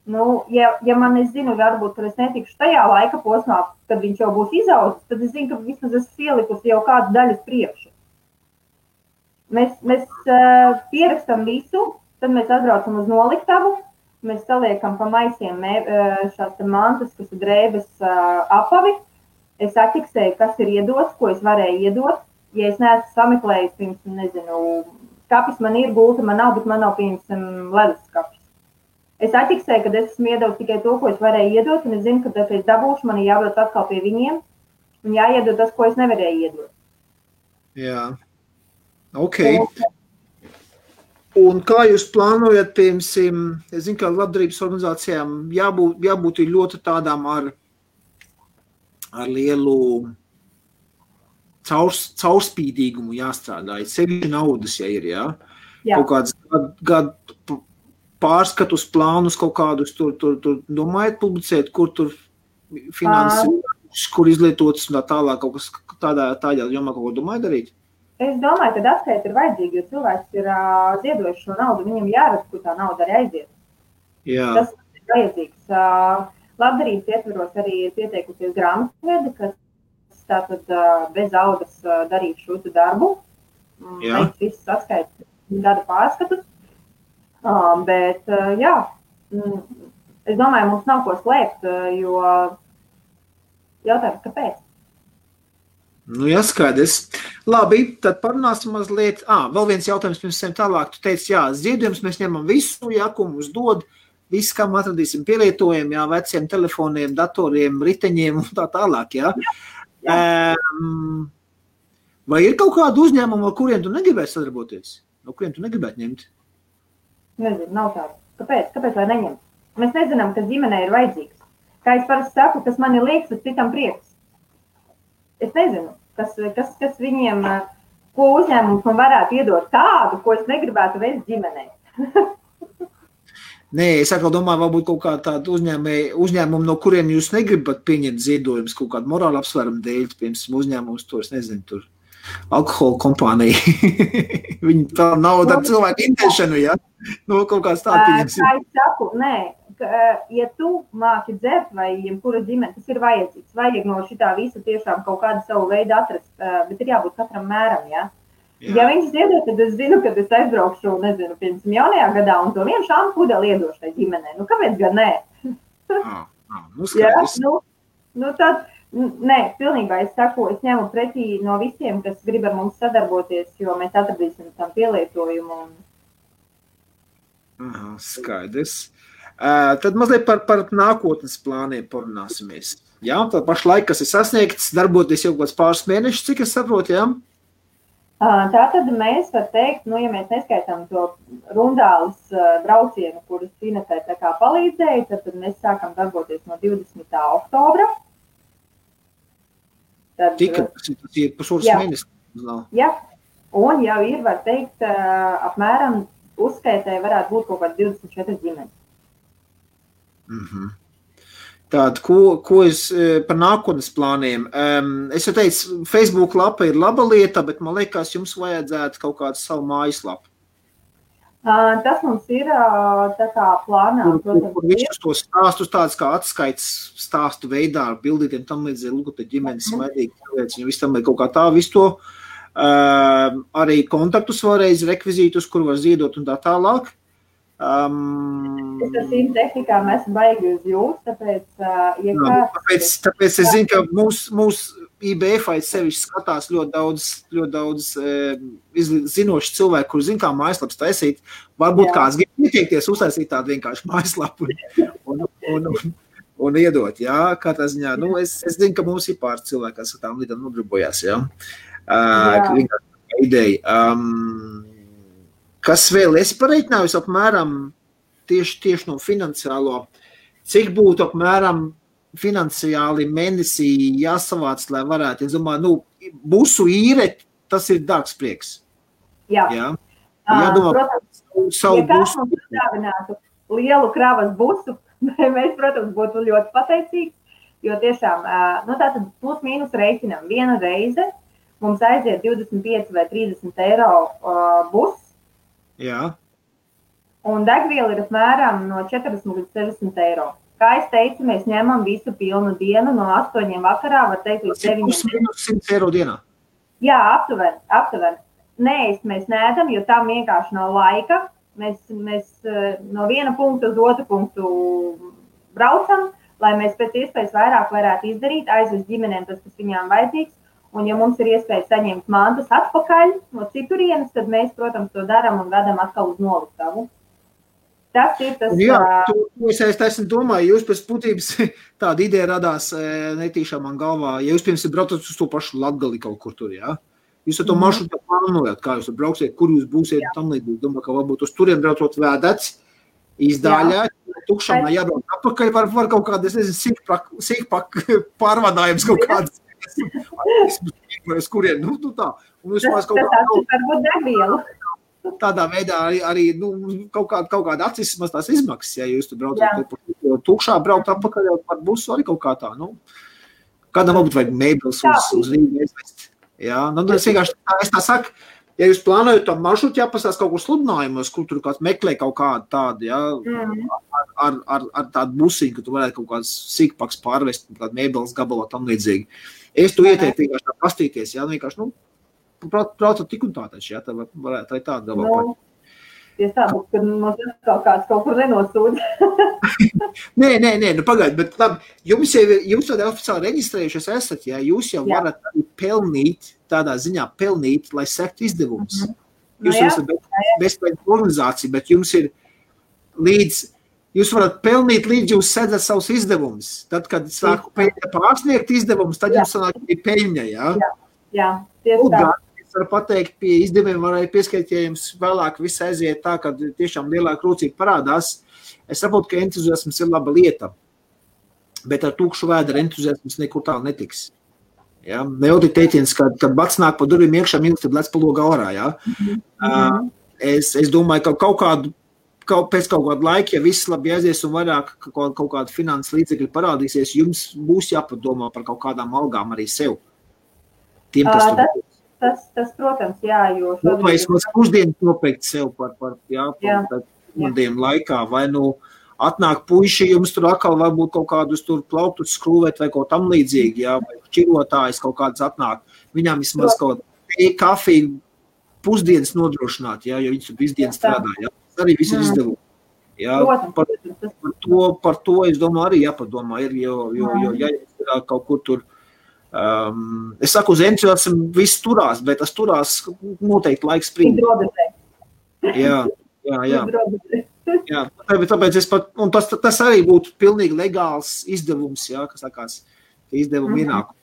Ja man es zinu, varbūt, ka es netikšu tajā laika posmā, kad viņš jau būs izaudzis, tad es zinu, ka vismaz esmu pielikusi jau kādu daļu uz priekšu. Mēs pierakstam visu, tad mēs atbraucam uz noliktavu, mēs saliekam pa maisiem šās mantas, kas ir drēbes apavi. Es atķiksēju, kas ir iedots, ko es varēju iedot. Ja es neesmu sameklējis, pirms, skapis man ir, gulta man nav, bet man nav ledus skapis. Es atķiksēju, kad es esmu iedevis tikai to, ko es varēju iedot, un es zinu, ka tad es dabūšu, man ir jābrauc atkal pie viņiem, un jāiedod tas, ko es nevarēju iedot. Jā, ok. Un kā jūs plānojat, piemēram, es zinu, ka labdarības organizācijām jābūt ļoti tādām ar lielu caurspīdīgumu jāstrādā, sevišķi naudas, ja ir, jā? Kaut kāds gadu pārskatus, plānus kaut kādus tur domājat publicēt, kur tur finanses, kur izlietotas un tā tālāk, kaut kas tādā jomā kaut ko domājat darīt? Es domāju, ka atskaita ir vajadzīga, jo cilvēks ir ziedojuši šo naudu, viņam jārada, kur tā nauda arī aiziet. Jā. Tas ir vajadzīgs. Labdarības ietveros arī ir pieteikusies grāmatvedi, kas tātad bez algas darīt šo darbu. Jā. Mēs visus atskaita gada pārskatus. Bet, jā, es domāju, mums nav ko slēpt, jo jautājums, kāpēc? Skaidrs. Labi, tad parunāsim mazliet. Vēl viens jautājums pirms tālāk. Tu teici, ziedojums mēs ņemam visu, ko mums dod, visu, kam atradīsim pielietojumu, veciem telefoniem, datoriem, riteņiem un tā tālāk, jā. Vai ir kaut kādu uzņēmumu, ar kuriem tu negribētu sadarboties? No kuriem tu negribētu ņemt? Nezinu, nav tādu. Kāpēc lai neņem? Mēs nezinām, kas ģimenei ir vajadzīgs. Kā es parasti saku, kas man ir liekas, tas citam prieks. Es nezinu, kas viņiem, ko uzņēmums man varētu iedot tādu, ko es negribētu veikt ģimenei. Nē, es atkal domāju, varbūt kaut kā tādu uzņēmumu, no kuriem jūs negribat pieņemt ziedojumus, kaut kādu morālu apsvērumu dēļ, piemēram, uzņēmums to, es nezinu, tur alkohola kompānija. Viņi tā nauda ar cilvēku intēšanu, ja? Kaut kāds tāds pieņems. Kā es saku, nē, ja tu māki dzert vai jebkura ģimene, tas ir vajadzīgs. Vajag no šitā visa tiešām kaut kādu savu veidu atrast, bet ir jābūt katram mēram, jā. Ja viņš ziedot, tad es zinu, kad es aizbraukšu, nezinu, piemēram, jaunajā gadā un to vienu šāmu pudeli iedošu tai ģimenei. Nu, kāpēc gan nē? Tad, nē, pilnībā es saku, es ņemu pretī no visiem, kas grib ar mums sadarboties, jo mēs atradīsim tam pielietojumu. Skaidrs. Tad mazliet par nākotnes plāniem parunāsimies. Jā, tad pašlaik, kas ir sasniegts, darboties jau kāds pāris mēnešus, cik es saprotu, jā? Tātad mēs var teikt, ja mēs neskaitām to rundālis braucienu, kurus Inetē tā kā palīdzēja, tad mēs sākam darboties no 20. oktobra. Tika, tas ir pusotrs mēnesis. Jā, un jau ir, var teikt, apmēram uzskaitē varētu būt kaut kāds 24 ģimenes. Tātad, ko es par nākotnes plāniem? Es jau teicu, Facebook lapa ir laba lieta, bet man liekas, jums vajadzētu kaut kādu savu mājaslapu. Tas mums ir tā kā plānā. Kur visus tos stāstus tāds kā atskaits stāstu veidā ar bildītiem tam līdzīgi, lūk, te ģimenes smaidīgi cilvēks, viņi visu tam līdz kaut kā tā visu to. Arī kontaktus vēlreiz, rekvizītus, kur var ziedot un tā tālāk. Es ar šīm tehnikām esmu baigi uz jūs, tāpēc, tāpēc es zinu, ka mūsu IBF sevišķi skatās ļoti daudz zinoši cilvēki, kur zina, kā mājaslaps taisīt. Varbūt kāds grib ieteikties uztaisīt tādu vienkārši mājaslapu un iedot, jā, kā tā ziņā. Nu, es zinu, ka mums ir pāris cilvēki, kas ar tām lietām nodarbojās, jā. Ideja. Kas vēl es pareiķināju apmēram tieši no finansiālo, cik būtu apmēram finansiāli mēnesī jāsavāc, lai varētu, es domāju, busu īre, tas ir dārgs prieks. Jā. Jādomā, savu kāds mums uzdāvinātu lielu kravas busu, mēs, protams, būtu ļoti pateicīgi, jo tiešām, tātad plus mīnus reiķinam viena reize, mums aiziet 25 vai 30 eiro bus. Jā. Un degviela ir apmēram no 40 līdz 60 eiro. Kā es teicu, mēs ņemam visu pilnu dienu no 8 vakarā, var teikt, līdz 9. 100 eiro dienā? Jā, aptuveni. Neēst mēs neēdam, jo tam vienkārši nav laika. Mēs no viena punkta uz otru punktu braucam, lai mēs pēc iespējas vairāk varētu izdarīt, aizvest ģimenēm tas, kas viņām vajadzīgs. Un, ja mums ir iespēja saņemt mantas atpakaļ no citurienes, tad mēs, protams, to daram un vedam atkal uz noliktavu. Tas ir tas... Jā, es esmu domāju, jūs pēc būtības tāda ideja radās netīšām man galvā. Ja jūs, piemēram, braucat uz to pašu Latgali kaut kur tur, jā? Jūs ar to maršrutu plānojat, kā jūs brauksiet, kur jūs būsiet tam līdzīgi. Domāju, ka varbūt uz turiem braucot vēdets, izdaļā, tukšām jābrauc atpakaļ, var kaut kādas, sīkpak pārvadājums kaut kādas. Kurien, tā. Un tas varbūt degvielu. Tādā veidā arī kaut kāda acis tās izmaksas, ja jūs tur braucat tukšā, braukt atpakaļ par busu arī kaut kā tā, Kādam varbūt vajag mēbeles uz Rīgu aizvest. Jā, es vienkārši es tā saku, ja jūs plānojat to maršrutu, jāpasās kaut kur sludinājumos, kur tur kāds meklē kaut kādu tādu, ar tādu busiņu, ka tu varētu kaut kāds sīkpaks pārvest, kādu mēbeles gabalā tam līdzīgi. Es tu ieteiktu vienkārši tā pastīties, vienkārši, braucat tik un tā taču, tā varētu arī tādu gabalā. Ja tā būs, kad mums kaut kur nenosūdz. Nē, pagaid, bet labi, jūs jau oficiāli reģistrējušies esat, jūs jau varat arī pelnīt, tādā ziņā pelnīt, lai sektu izdevumus. Jūs esat bezpēļņu organizācija, bet jums ir jūs varat pelnīt līdz jūs sēdat savus izdevumus. Tad, kad sāku pārsniegt izdevumus, tad jums sanāk arī peļņa, Jā, tieši tā. Es varu pateikt, pie izdevumiem varēja pieskaitīt, ja jums vēlāk viss aiziet tā, kad tiešām lielāka rūcība parādās. Es saprotu, ka entuziasms ir laba lieta, bet ar tukšu vēdera entuziasms nekur tālu netiks. Ja? Nejautri teiciens, kad bats nāk pa durvīm iekšā, mīlis, tad lec pa logu ārā. Ja? Es domāju, ka pēc kaut kāda laika, ja viss labi aizies un vairāk kaut kāda finanses līdzekļi parādīsies, jums būs jāpadomā par kaut kādām algām arī sev. Tiem, Tas, protams, jā, jo... Vai es pusdienas nopeikt sev par dienu laikā, vai atnāk puiši, jums tur atkal varbūt kaut kādus tur plauktus skrūvēt vai kaut tam līdzīgi, jā, vai šķirotājs kaut kāds atnāk. Viņām vismaz kaut kafiju pusdienas nodrošināt, jā, jo viņas tur visu dienu strādā, jā. Tas arī viss ir izdevumi. Jā, par to, es domāju, arī jāpadomā ir, jo ja ir kaut kur tur, es saku, uz entuziasmu viss turās, bet tas turās noteikti laiks sprīd. Jā. Jā, tāpēc es pat, un tas arī būtu pilnīgi legāls izdevums, jā, kas sakās, izdevumi ienāk.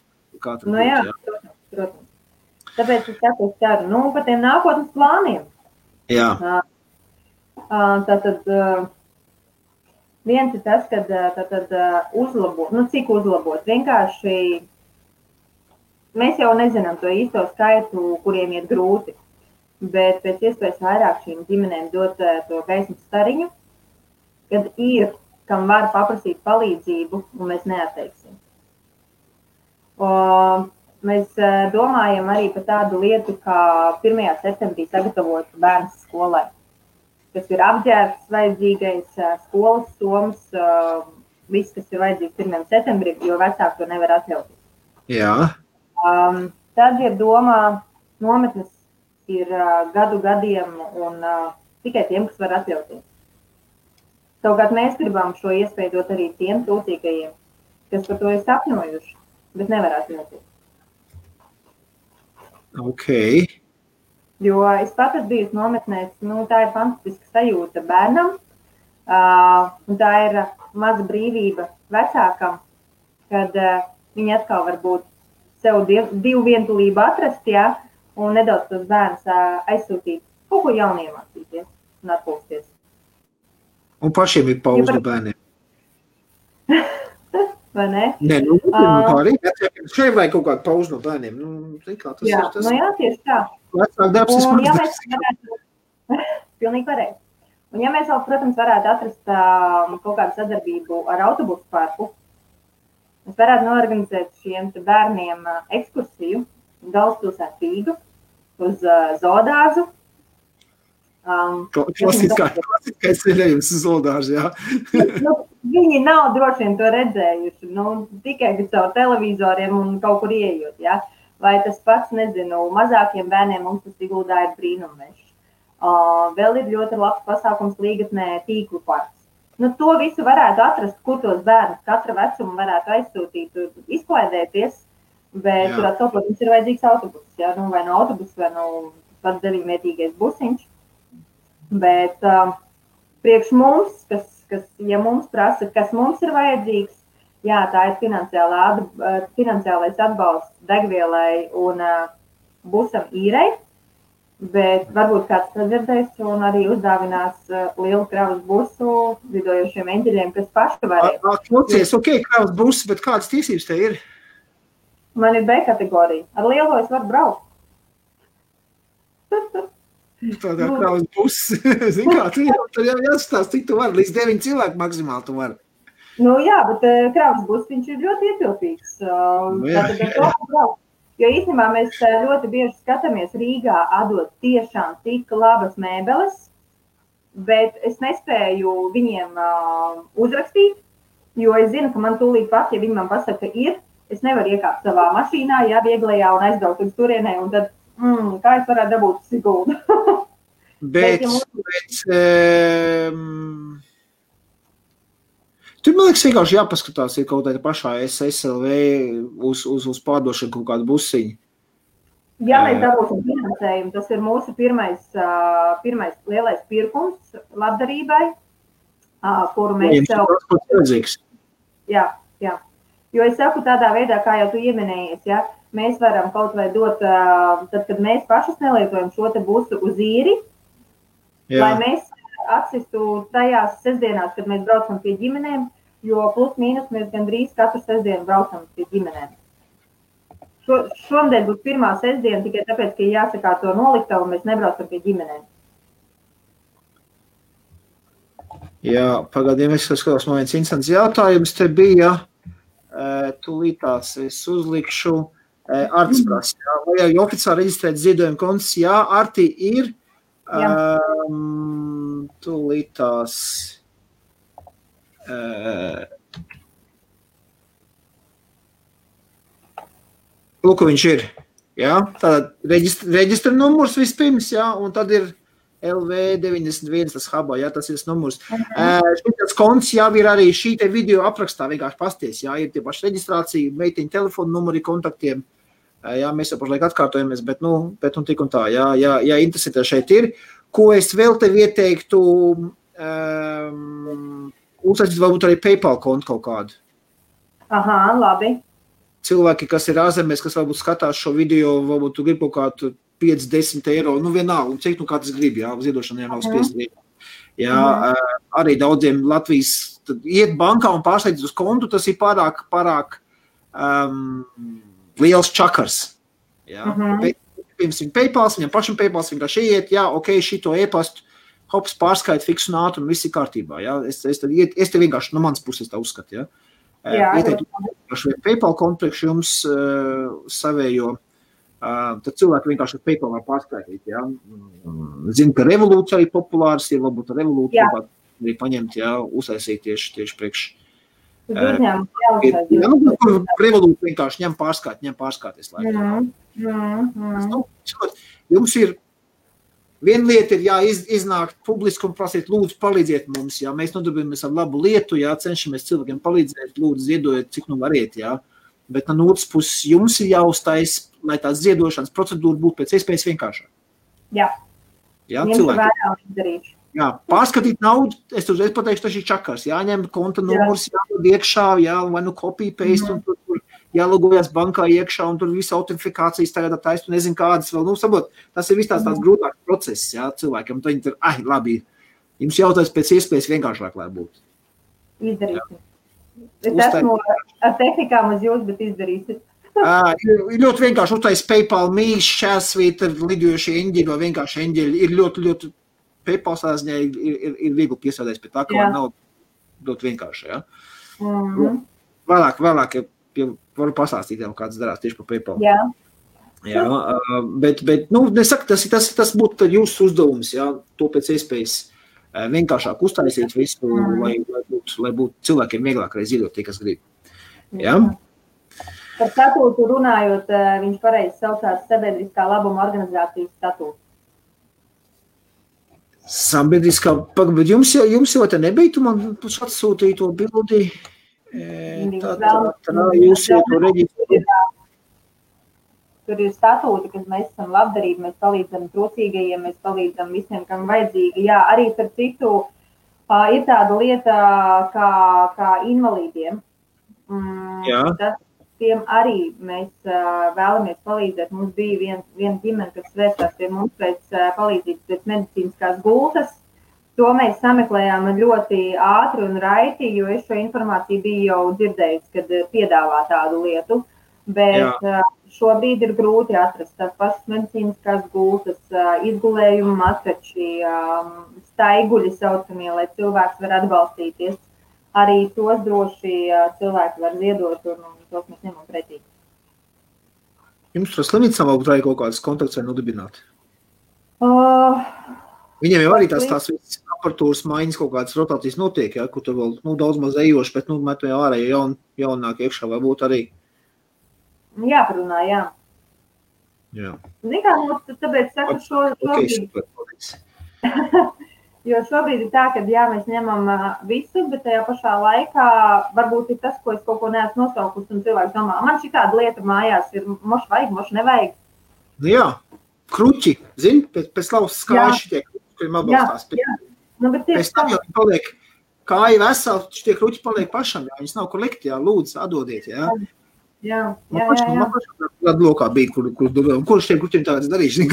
Nu jā, protams. Tāpēc es saku, par tiem nākotnes plāniem. Jā. Tātad viens ir tas, kad uzlabot, cik uzlabot. Vienkārši mēs jau nezinām to īsto skaitu, kuriem iet grūti, bet pēc iespējas vairāk šīm ģimenēm dot to gaismas stariņu, kad ir, kam var paprasīt palīdzību, un mēs neatteiksim. Mēs domājam arī par tādu lietu, kā 1. septembrī sagatavot bērns skolai, kas ir apģērbs vajadzīgais, skolas somas, viss, kas ir vajadzīgs 1. septembrī, jo vecāki to nevar atļauties. Jā. Tad ir domā, nometnes ir gadiem un tikai tiem, kas var atļauties. Savukārt mēs gribam šo iespēju dot arī tiem trūcīgajiem, kas par to ir sapņojuši, bet nevar atļauties. Ok. Jo es pat esmu bijusi nometnēs, tā ir fantastiska sajūta bērnam, un tā ir maza brīvība vecākam, kad viņi atkal var būt sev divu vientulību atrast, jā, un nedaudz tos bērnus aizsūtīt, kaut ko jaunu iemācīties un atpūsties. Un pašiem ir pauze no bērniem. Vai ne? Nē, tā arī. Šeit vajag kaut kādu pauzi no bērniem. Jā, tieši tā. Vecāk darbs ir smags darbs. Pilnīgi pareizi. Un ja mēs vēl, protams, varētu atrast kaut kādu sadarbību ar autobusu parku, mēs varētu norganizēt šiem bērniem ekskursiju galvaspilsētu Rīgu uz zoodārzu. Klasiskais ceļojums uz zoodārzu, jā. Viņi nav droši vien to redzējuši, tikai caur televizoriem un kaut kur ieejot, jā. Vai tas pats, nezinu, mazākiem bērniem mums tas Siguldā ir brīnummešs. Vēl ir ļoti labs pasākums Līgatnē tīklu parks. To visu varētu atrast, kur tos bērnus katra vecuma varētu aizsūtīt, izklaidēties, bet tur atkal, protams, ir vajadzīgs autobus, jā, vai no autobus, vai no pats 9-vietīgais busiņš. Bet priekš mums, ja mums prasa, kas mums ir vajadzīgs, jā, tā ir finansiālais atbalsts degvielai un busam īrei, bet varbūt kāds sadzirdēs un arī uzdāvinās lielu kravas busu lidojošiem eņģeļiem, kas paši varēja. Klausies, ok, kravas busu, bet kādas tiesības te ir? Man ir B kategorija. Ar lielo es varu braukt. Tādā kravas buses, zin kā, tur jau jāsastāst, cik tu vari, līdz 9 cilvēku maksimāli tu vari. Jā, bet kravas buses viņš ir ļoti ietilpīgs. Jo īstenībā mēs ļoti bieži skatāmies Rīgā atdot tiešām tik labas mēbeles, bet es nespēju viņiem uzrakstīt, jo es zinu, ka man tūlīt pat, ja viņi man pasaka, ka ir, es nevaru iekāpt savā mašīnā, jā, vieglajā un aizbraukt uz turienē, un tad kā es varētu dabūt Siguldu? Bet tur, man liekas, vienkārši jāpaskatās, ir kaut kāda pašā SLV uz pārdošanu kaut kādu busiņu. Ja mēs dabūsim finansējumu, tas ir mūsu pirmais lielais pirkums labdarībai, kuru mēs sev... Jā. Jo es saku tādā veidā, kā jau tu ieminējies, ja, mēs varam kaut vai dot, tad, kad mēs pašas nelietojam šo te busu uz īri, lai mēs atsistu tajās sestdienās, kad mēs braucam pie ģimenēm, jo plus mīnus mēs gandrīz katru sestdienu braucam pie ģimenēm. Šomdēļ būs pirmā sestdiena tikai tāpēc, ka jāsakā to noliktavu un mēs nebraucam pie ģimenēm. Jā, pagādiem es skatās, man viens instants jautājums te bija, tūlītās es uzlikšu Artis prasa, vai jau oficiāli reģistrēt ziedojumu konts? Jā, Arti ir, tūlītās Lūk, viņš ir. Jā, tātad reģistra numurs vispirms, jā, un tad ir LV91, tas hubā, jā, tas ir tas numurs. Šitas konts jau ir arī šī te video aprakstā vienkārši pasties, jā, ir tie paši reģistrācija, meitiņu telefonu numuri kontaktiem, jā, mēs jau pašlaik atkārtojamies, bet tik un tā, jā, interesē šeit ir. Ko es vēl tev ieteiktu, uzsākt varbūt arī PayPal kontu kaut kādu. Aha, labi. Cilvēki, kas ir ārzemēs, kas varbūt skatās šo video, varbūt tu grib kaut kādu 5-10 eiro, vienalga, un cik kāds grib, jā, ziedošanai nav spiest. Jā, arī daudziem Latvijas, tad iet bankā un pārslēdz uz kontu, tas ir pārāk liels čakars. Jā, pirms viņa PayPals, viņam pašam PayPals vienkārši iet, jā, ok, šito e-pastu, hops, pārskait, fiks un ātri, un viss ir kārtībā, jā, es te vienkārši no manas puses tā uzskatu, jā. Ieteiktu PayPal kontu priekš jums savējo, tad cilvēki vienkārši PayPal var pārskaitīt, jā. Zinu, ka Revolūts arī populārs ir, varbūt Revolūtu arī paņemt, jā, uztaisīt tieši priekš. Revolūtu vienkārši ņem pārskaities laikā. Jums ir viena lieta ir, jā, iznākt publiski un prasīt, lūdzu, palīdziet mums, jā, mēs nodarbojamies ar labu lietu, jā, cenšamies cilvēkiem palīdzēt, lūdzu, ziedojiet, cik nu variet, jā, bet no otras puses jums ir jāuztais, lai tās ziedošanas procedūra būtu pēc iespējas vienkāršāk. Jā, cilvēki. Jā, pārskatīt naudu, es pateikšu, tas ir čakars, jāņem konta numurs, jādod iekšā, jā, vai nu copy, paste, un tur jālogojas bankā iekšā, un tur visa autentifikācijas tagad taist, un nezinu kādas vēl, sabot, tas ir viss tāds grūtāks process, jā, cilvēkiem, tad viņi tur, labi, jums jautājums pēc iespējas vienkāršāk, lai būtu. Izdarīsim. Es esmu ar tehnikām uz jūs, bet izdarīsim. Ir ļoti vienkārši uztais PayPal mīš, šķērsvīta, lidojošie eņģeļi vai vienkārši eņģeļi, ir ļoti PayPal sāziņā ir viegli piesādēs pie tā, ka nav ļoti vienkārši, jā. Vēlāk, varu pastāstīt jau, kāds darās tieši par PayPal. Jā, bet nesaku, tas būtu jūsu uzdevums, jā, to pēc iespējas vienkāršāk uztaisīt visu, lai būtu cilvēkiem vieglāk arī ziedot tie, kas grib. Jā? Par statūtu runājot, viņš pareizi saucās sabiedriskā labuma organizācijas statūtu. Sabiedriskā, bet jums jau te nebija, tu man atsūtīja to bildi. Jūs jau to reģistrējat. Tur ir statūti, kas mēs esam labdarīgi, mēs palīdzam trūcīgajiem, mēs palīdzam visiem, kam vajadzīgi. Jā, arī par citu ir tāda lieta kā invalīdiem. Tiem arī mēs vēlamies palīdzēt. Mums bija viena ģimene, kas vērsās pie mums pēc palīdzības pēc medicīniskās gultas. To mēs sameklējām ļoti ātri un raiti, jo es šo informāciju biju jau dzirdējusi, kad piedāvā tādu lietu. Bet šobrīd ir grūti atrast tās pašas medicīniskās gultas, izgulējumu matrači, staiguļi saucamie, lai cilvēks var atbalstīties. Arī tos droši cilvēki var ziedot un tos mēs ņemam pretī. Jums tur slimnīcā varbūt arī kaut kādas kontakts var nodibināt? Viņiem jau arī tās visas aparatūras maiņas kaut kādas rotācijas notiek, ja, kur tur vēl daudz maz ejoši, bet met jau ārā jaunāk iekšā vai būt arī. Jāparunā, jā. Zin kā, tāpēc saku šobrīd. Jo šobrīd ir tā, ka jā, mēs ņemam visu, bet tajā pašā laikā varbūt ir tas, ko es kaut ko neesmu nosaukusi, un cilvēks domā, man šī tāda lieta mājās ir, moši vajag, moši nevajag. Jā, kruķi, zini, pēc lausas kājas šitie kruķi, kuriem atbalstās. Pēc tam jau viņi paliek kāja veseli, šitie kruķi paliek pašam, jā, viņas nav kur likt, jā, lūdzu, atdodiet, jā. Jā. Man pašam lokā bija, kur šiem kruķiem tāds darīšu,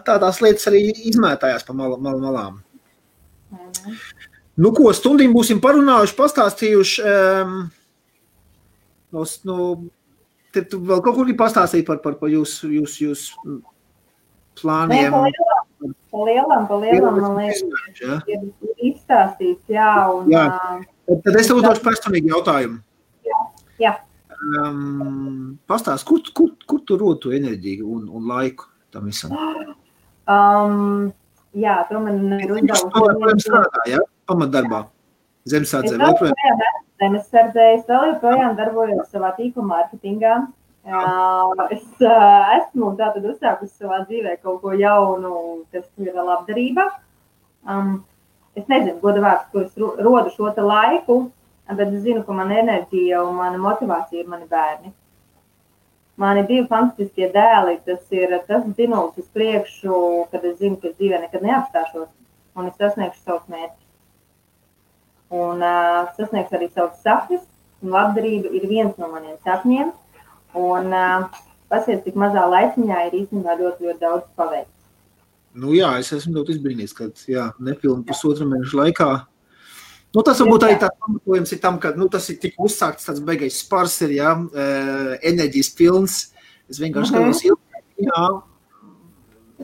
tās lietas arī izmētājās pa malām. Nu ko, stundiņu būsim parunājuši, pastāstījuši, te tu vēl kaut kur pastāstīji par jūs plāniem. Pa lielam, man liekas, ir izstāstīts, jā, un... Tad es tev uzdošu personīgi jautājumu. Jā. Pastāst, kur tu rod to enerģiju un laiku tam visam? Jā, to man ir uzdevusi. Joprojām strādā, jā? Pamatdarbā. Zemesardzē vēl projām. Zemesardzē es vēl joprojām darbojos savā tīkla mārketingā. Es esmu tātad uzsākusi savā dzīvē kaut ko jaunu, kas ir labdarība. Es nezinu, goda vārds, ko es rodu šo te laiku, bet es zinu, ka mana enerģija un mana motivācija ir mani bērni. Mani 2 fantastiskie dēli, tas ir tas dzinums uz priekšu, kad es zinu, ka es dzīvē nekad neapstāšos un es sasniegšu savus mērķus. Un sasniegšu arī savus sapņus, un labdarība ir viens no maniem sapņiem. Un pasies, cik mazā laiciņā ir īstenībā ļoti daudz paveikts. Nu jā, es esmu ļoti izbrīnījis, ka nepilni pusotru mēnešu laikā. Nu, tas varbūt arī tāds pamatojums ir tam, ka tas ir tik uzsākts, tāds beigais spars ir, enerģijas pilns. Es vienkārši skatos,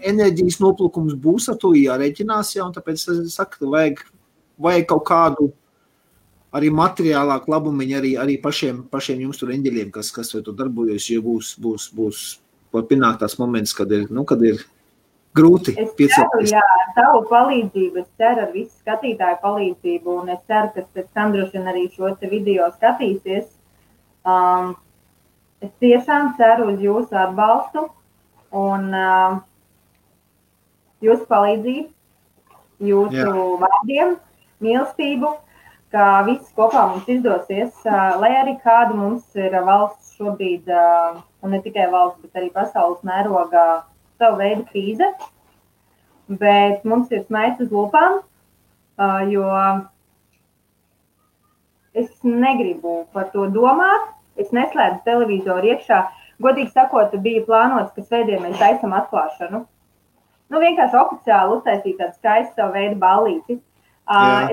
enerģijas noplūkums būs, ar to jārēķinās, un tāpēc es saku, ka vajag kaut kādu arī materiālāku labumiņu arī pašiem jums tur eņģeļiem, kas vai to darbojas, jo būs pienākt tās moments, kad ir grūti Es piecelties. ceru, ar tavu palīdzību, es ceru ar visu skatītāju palīdzību, un es ceru, ka pēc tam droši vien arī šo te video skatīsies. Es tiešām ceru uz jūsu atbalstu un jūsu palīdzību, jūsu vārdiem, mīlestību, ka viss kopā mums izdosies, lai arī kāda mums ir valsts šobrīd, un ne tikai valsts, bet arī pasaules mērogā, savu veidu krīze, bet mums ir smaids uz lūpām, jo es negribu par to domāt, es neslēdzu televizoru iekšā. Godīgi sakot, bija plānots, ka svētdien mēs taisam atklāšanu. Vienkārši oficiāli uztaisīt tādu skaistu savu veidu ballīti.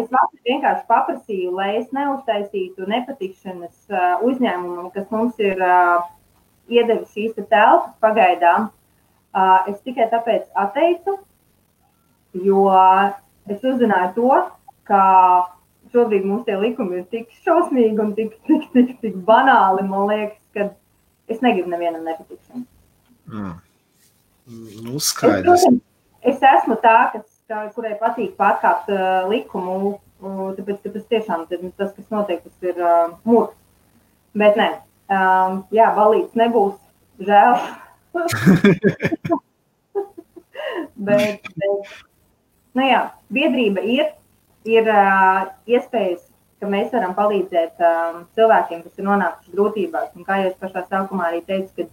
Es vienkārši paprasīju, lai es neuztaisītu nepatikšanas uzņēmumam, kas mums ir iedevis šīs telpas pagaidām. Es tikai tāpēc atteicu, jo es uzzināju to, ka šobrīd mums tie likumi ir tik šausmīgi un tik banāli, man liekas, ka es negribu nevienam nepatikšanu. Skaidrs. Es esmu tā, kurai patīk pārkāpt likumu, tāpēc, ka tas tiešām tas, kas notiek, tas ir murgs. Bet ne, balīts nebūs, žēl. bet biedrība ir iespējas, ka mēs varam palīdzēt cilvēkiem, kas ir nonākuši grūtībās. Un kā jau es pašā sākumā arī teicu, ka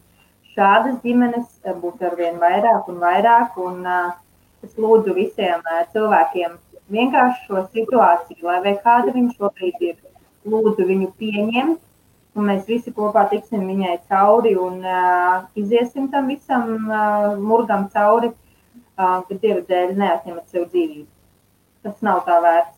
šādas ģimenes būs arvien vairāk un vairāk, un es lūdzu visiem cilvēkiem vienkārši šo situāciju, lai kāda viņa šobrīd ir, lūdzu viņu pieņemt, un mēs visi kopā tiksim viņai cauri un iziesim tam visam murgam cauri, kad Dieva dēļ neatņemat sev dzīvību. Tas nav tā vērts.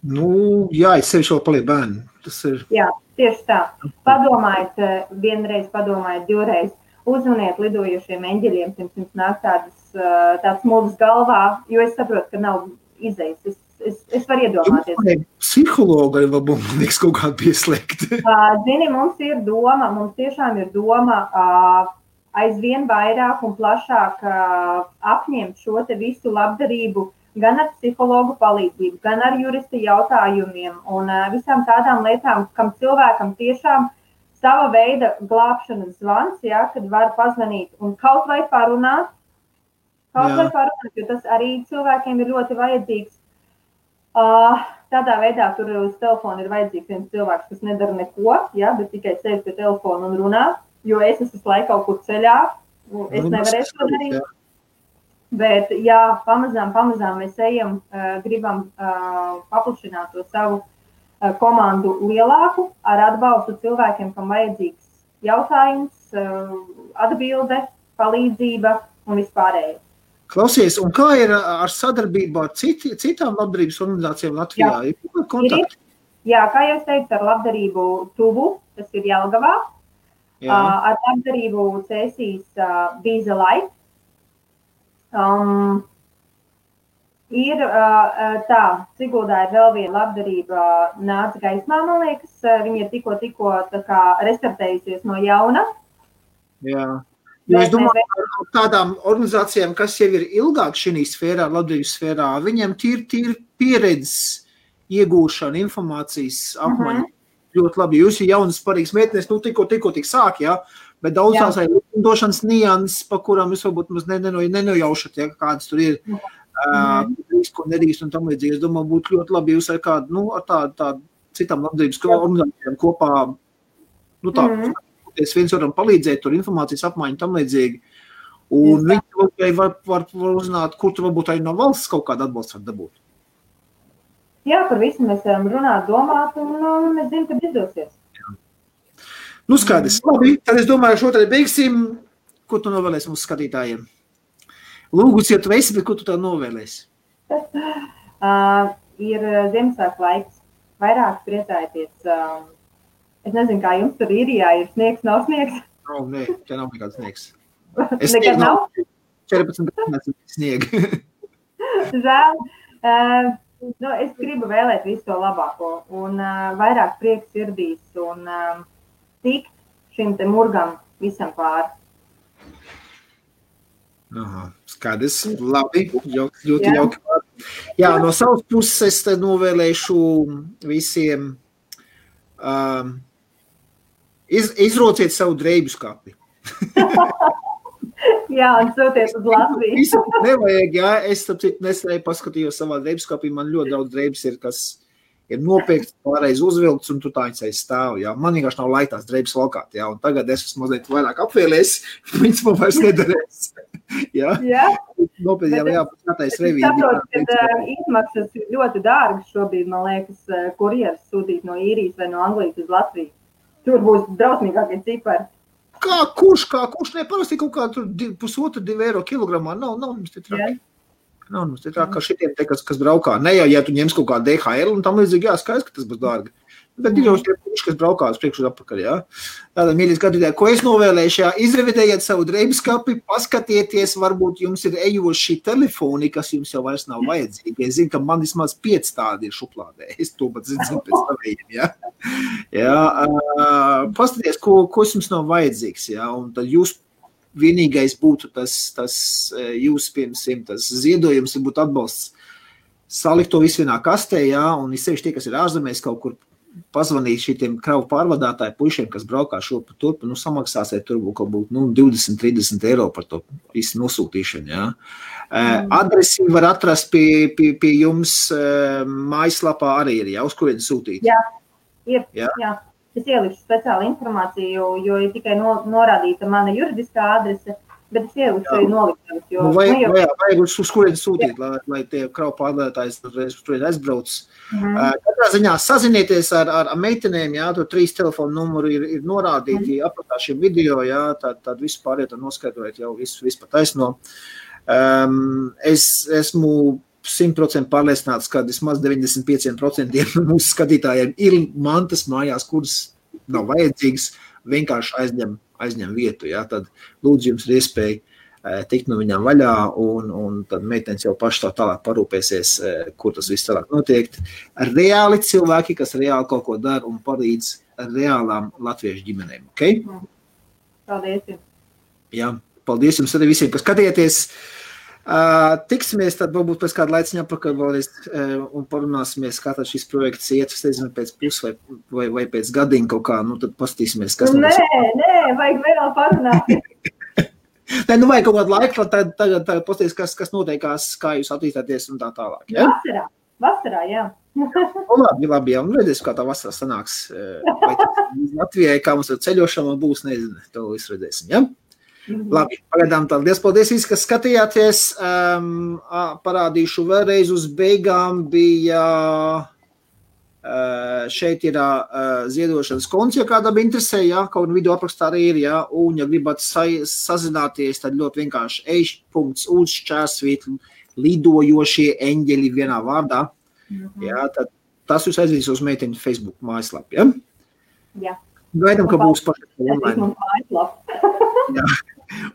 Es sevi šo paliek bērni. Tas ir... Jā, tieši tā. Padomājiet vienreiz, padomājiet divreiz. Uzvaniet lidojošiem eņģeļiem, pirms jums nāk tāds mūžs galvā, jo es saprotu, ka nav izējas. Es varu iedomāties. Psihologa arī vēl būs kaut kāda pieslēgta. Zini, mums tiešām ir doma aizvien vairāk un plašāk apņemt šo te visu labdarību gan ar psihologu palīdzību, gan ar jurista jautājumiem un visām tādām lietām, kam cilvēkam tiešām sava veida glābšanas zvans, kad var pazvanīt un kaut vai parunāt, jo tas arī cilvēkiem ir ļoti vajadzīgs. Tādā veidā tur uz telefonu ir vajadzīgs viens cilvēks, kas nedara neko, bet tikai sēž pie telefona un runā, jo es esmu laiku kaut kur ceļā, es nevarēšu to darīt. Bet, pamazām mēs ejam, gribam paplašināt to savu komandu lielāku ar atbalstu cilvēkiem, kam vajadzīgs jautājums, atbilde, palīdzība un vispārēji. Klausies, un kā ir ar sadarbību ar citām labdarības organizācijām Latvijā? Jā, kā jau es teicu, ar labdarību Tuvu, tas ir Jelgavā, ar labdarību cēsīs Vīza Life. Ir tā, Siguldā ir vēl viena labdarība nāca gaismā, man liekas, viņa ir tikko tā kā restartējusies no jauna. Jā. Jo es domāju, ar tādām organizācijām, kas jau ir ilgāk šī sfērā, labdarības sfērā, viņiem tīri pieredzes iegūšana, informācijas apmaiņa ļoti labi. Jūs ir jaunas parīgas meitenes, tikko tik sāk, jā, bet daudz tās ir likumdošanas nianses, pa kurām jūs varbūt maz nenojaušat, ja, kādas tur ir, ko nedrīkst un tam līdzīgi. Es domāju, būtu ļoti labi jūs ar kādu, ar tādu citām labdarības organizācijām kopā, viens varam palīdzēt, tur informācijas apmaiņu tam līdzīgi. Un viņi var uzzināt, kur tur varbūt arī no valsts kaut kādu atbalstu var dabūt. Jā, par visu mēs varam runāt, domāt, un mēs zinām, ka izdosies. Skaidrs. Labi, tad es domāju, šo tad beigsim. Ko tu novēlēsi mūsu skatītājiem? Lūgus, ja tu esi, bet ko tu tā novēlēsi? Ir Ziemassvētku laiks. Vairāk priecājieties. Es nezinu, kā jums tur Īrijā ir sniegs, nav sniegs? Nē, te nav nekāds sniegs. Nekad nav? 14 gadsimta sniega. Žēl. Es gribu vēlēt visu to labāko un vairāk prieks sirdīs un tikt šim te murgam visam pāri. Skaidrs, labi, ļoti jauki. Jā, no savas puses es te novēlēšu visiem izrociet savu drēbju skapi. Jā, un sūties uz Latviju. Visu nevajag, jā, es nesēju paskatījos savā drēbju skapī, man ļoti daudz drēbes ir, kas ir nopiekts, pārreiz uzvilkts, un tur tā viņas aiz stāv, jā. Man vienkārši nav laika tās drēbes valkāt, jā, un tagad es esmu mazliet vairāk apvēlēs, viņas man vairs nedarēs. Jā. Nopietni jau jāpaskatais revīdi. Es saprotu, ka izmaksas ir ļoti dārgas šobrīd, man liekas, kurjeras sūtīt no Īrijas vai no Anglijas uz Latviju. Tur būs drausmīgākie cipari. Kurš neparasti kaut kā tur 1,5–2 eiro kilogramā, nav mums te traki. Nav mums te traki, kā šitiem te, kas braukā. Ne jau, ja tu ņems kaut kā DHL un tam līdzīgi, jā, skaidrs, ka tas būs dārgi. Bet ir jau tie puši, kas braukā uz priekšu un atpakaļ, jā. Tātad, mīļie skatītāji, ko es novēlēšu, jā, izrevidējiet savu drēbju skapi, paskatieties, varbūt jums ir ejoši telefoni, kas jums jau vairs nav vajadzīgi. Es zinu, ka man vismaz 5 tādi ir šuplādē. Es to pat zinu pēc savējiem, jā. Jā, paskaties, ko jums nav vajadzīgs, jā, un tad jūs vienīgais būtu tas jūs pirmsim, tas ziedojums, būtu atbalsts. Salikt to visu vienā kastē, jā, un sevišķi tie, kas ir ārzemēs kaut kur pazvanīt šitiem kravu pārvadātāju pušiem, kas braukā šurp turp, samaksāsiet tur kaut būt 20–30 eiro par to visu nosūtīšanu, jā. Adresi var atrast pie jums mājaslapā arī ir, jā, uz kurien sūtīt? Jā, ir, jā. Es ielikšu speciālu informāciju, jo ir tikai norādīta mana juridiskā adrese, bet es ielikšu arī noliktavas, jo... Vajag uz kurien sūtīt, lai tie kravu pārvadātājs turien aizbrauc. Katrā ziņā sazinieties ar meitenēm, jā, tur 3 telefonu numuri ir norādīti apakšā šiem video, jā, tad visu pāriet un noskaidrojat jau visu pa taisno. Es esmu 100% pārliecināts, ka vismaz 95% mūsu skatītājiem ir mantas mājās, kuras nav vajadzīgas, vienkārši aizņem vietu, jā, tad lūdzu jums ir iespēja tikt no viņām vaļā, un tad meitenes jau paši tā tālāk parūpēsies, kur tas viss tālāk notiek. Reāli cilvēki, kas reāli kaut ko dara un palīdz reālām latviešu ģimenēm, ok? Paldies. Jā, paldies jums arī visiem, kas skatieties. Tiksimies tad varbūt pēc kāda laiciņa apakaļ vēlreiz un parunāsimies, kā tad šis projekts iet, es nezinu, pēc pus vai pēc gadiņa kaut kā, tad pastīsimies, kas Nē, vajag vēl parunāt. Nē, vajag kaut kādu laiku, tagad pastīsies, kas noteikās, kā jūs attīstāties un tā tālāk, ja? Vasarā, jā. Labi, jā, un redzēs, kā tā vasarā sanāks, vai Latvijai, kā mums ar ceļošanu būs, nezinu, to visu redzēsim, ja? Labi, pagaidām tā. Paldies visi, kas skatījāties. Parādīšu vēlreiz uz beigām bija šeit ir ziedošanas konts, ja kādam interesē, jā, kaut video aprakstā arī ir, jā, un ja gribat sazināties, tad ļoti vienkārši ej.uz/, lidojošie eņģeļi vienā vārdā, jā, tad tas jūs aizvedīs uz meiteņu Facebook mājaslapu, ja? Jā. Gaidām, ka būs pašiem online. Jā.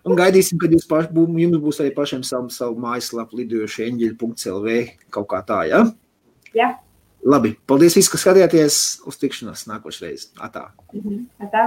Un gaidīsim, kad jums būs arī pašiem savu mājaslapu lidojošie eņģeļi.lv kaut kā tā, ja? Jā. Labi, paldies visi, kas skatījāties, uz tikšanos nākošreiz. Atā. Atā.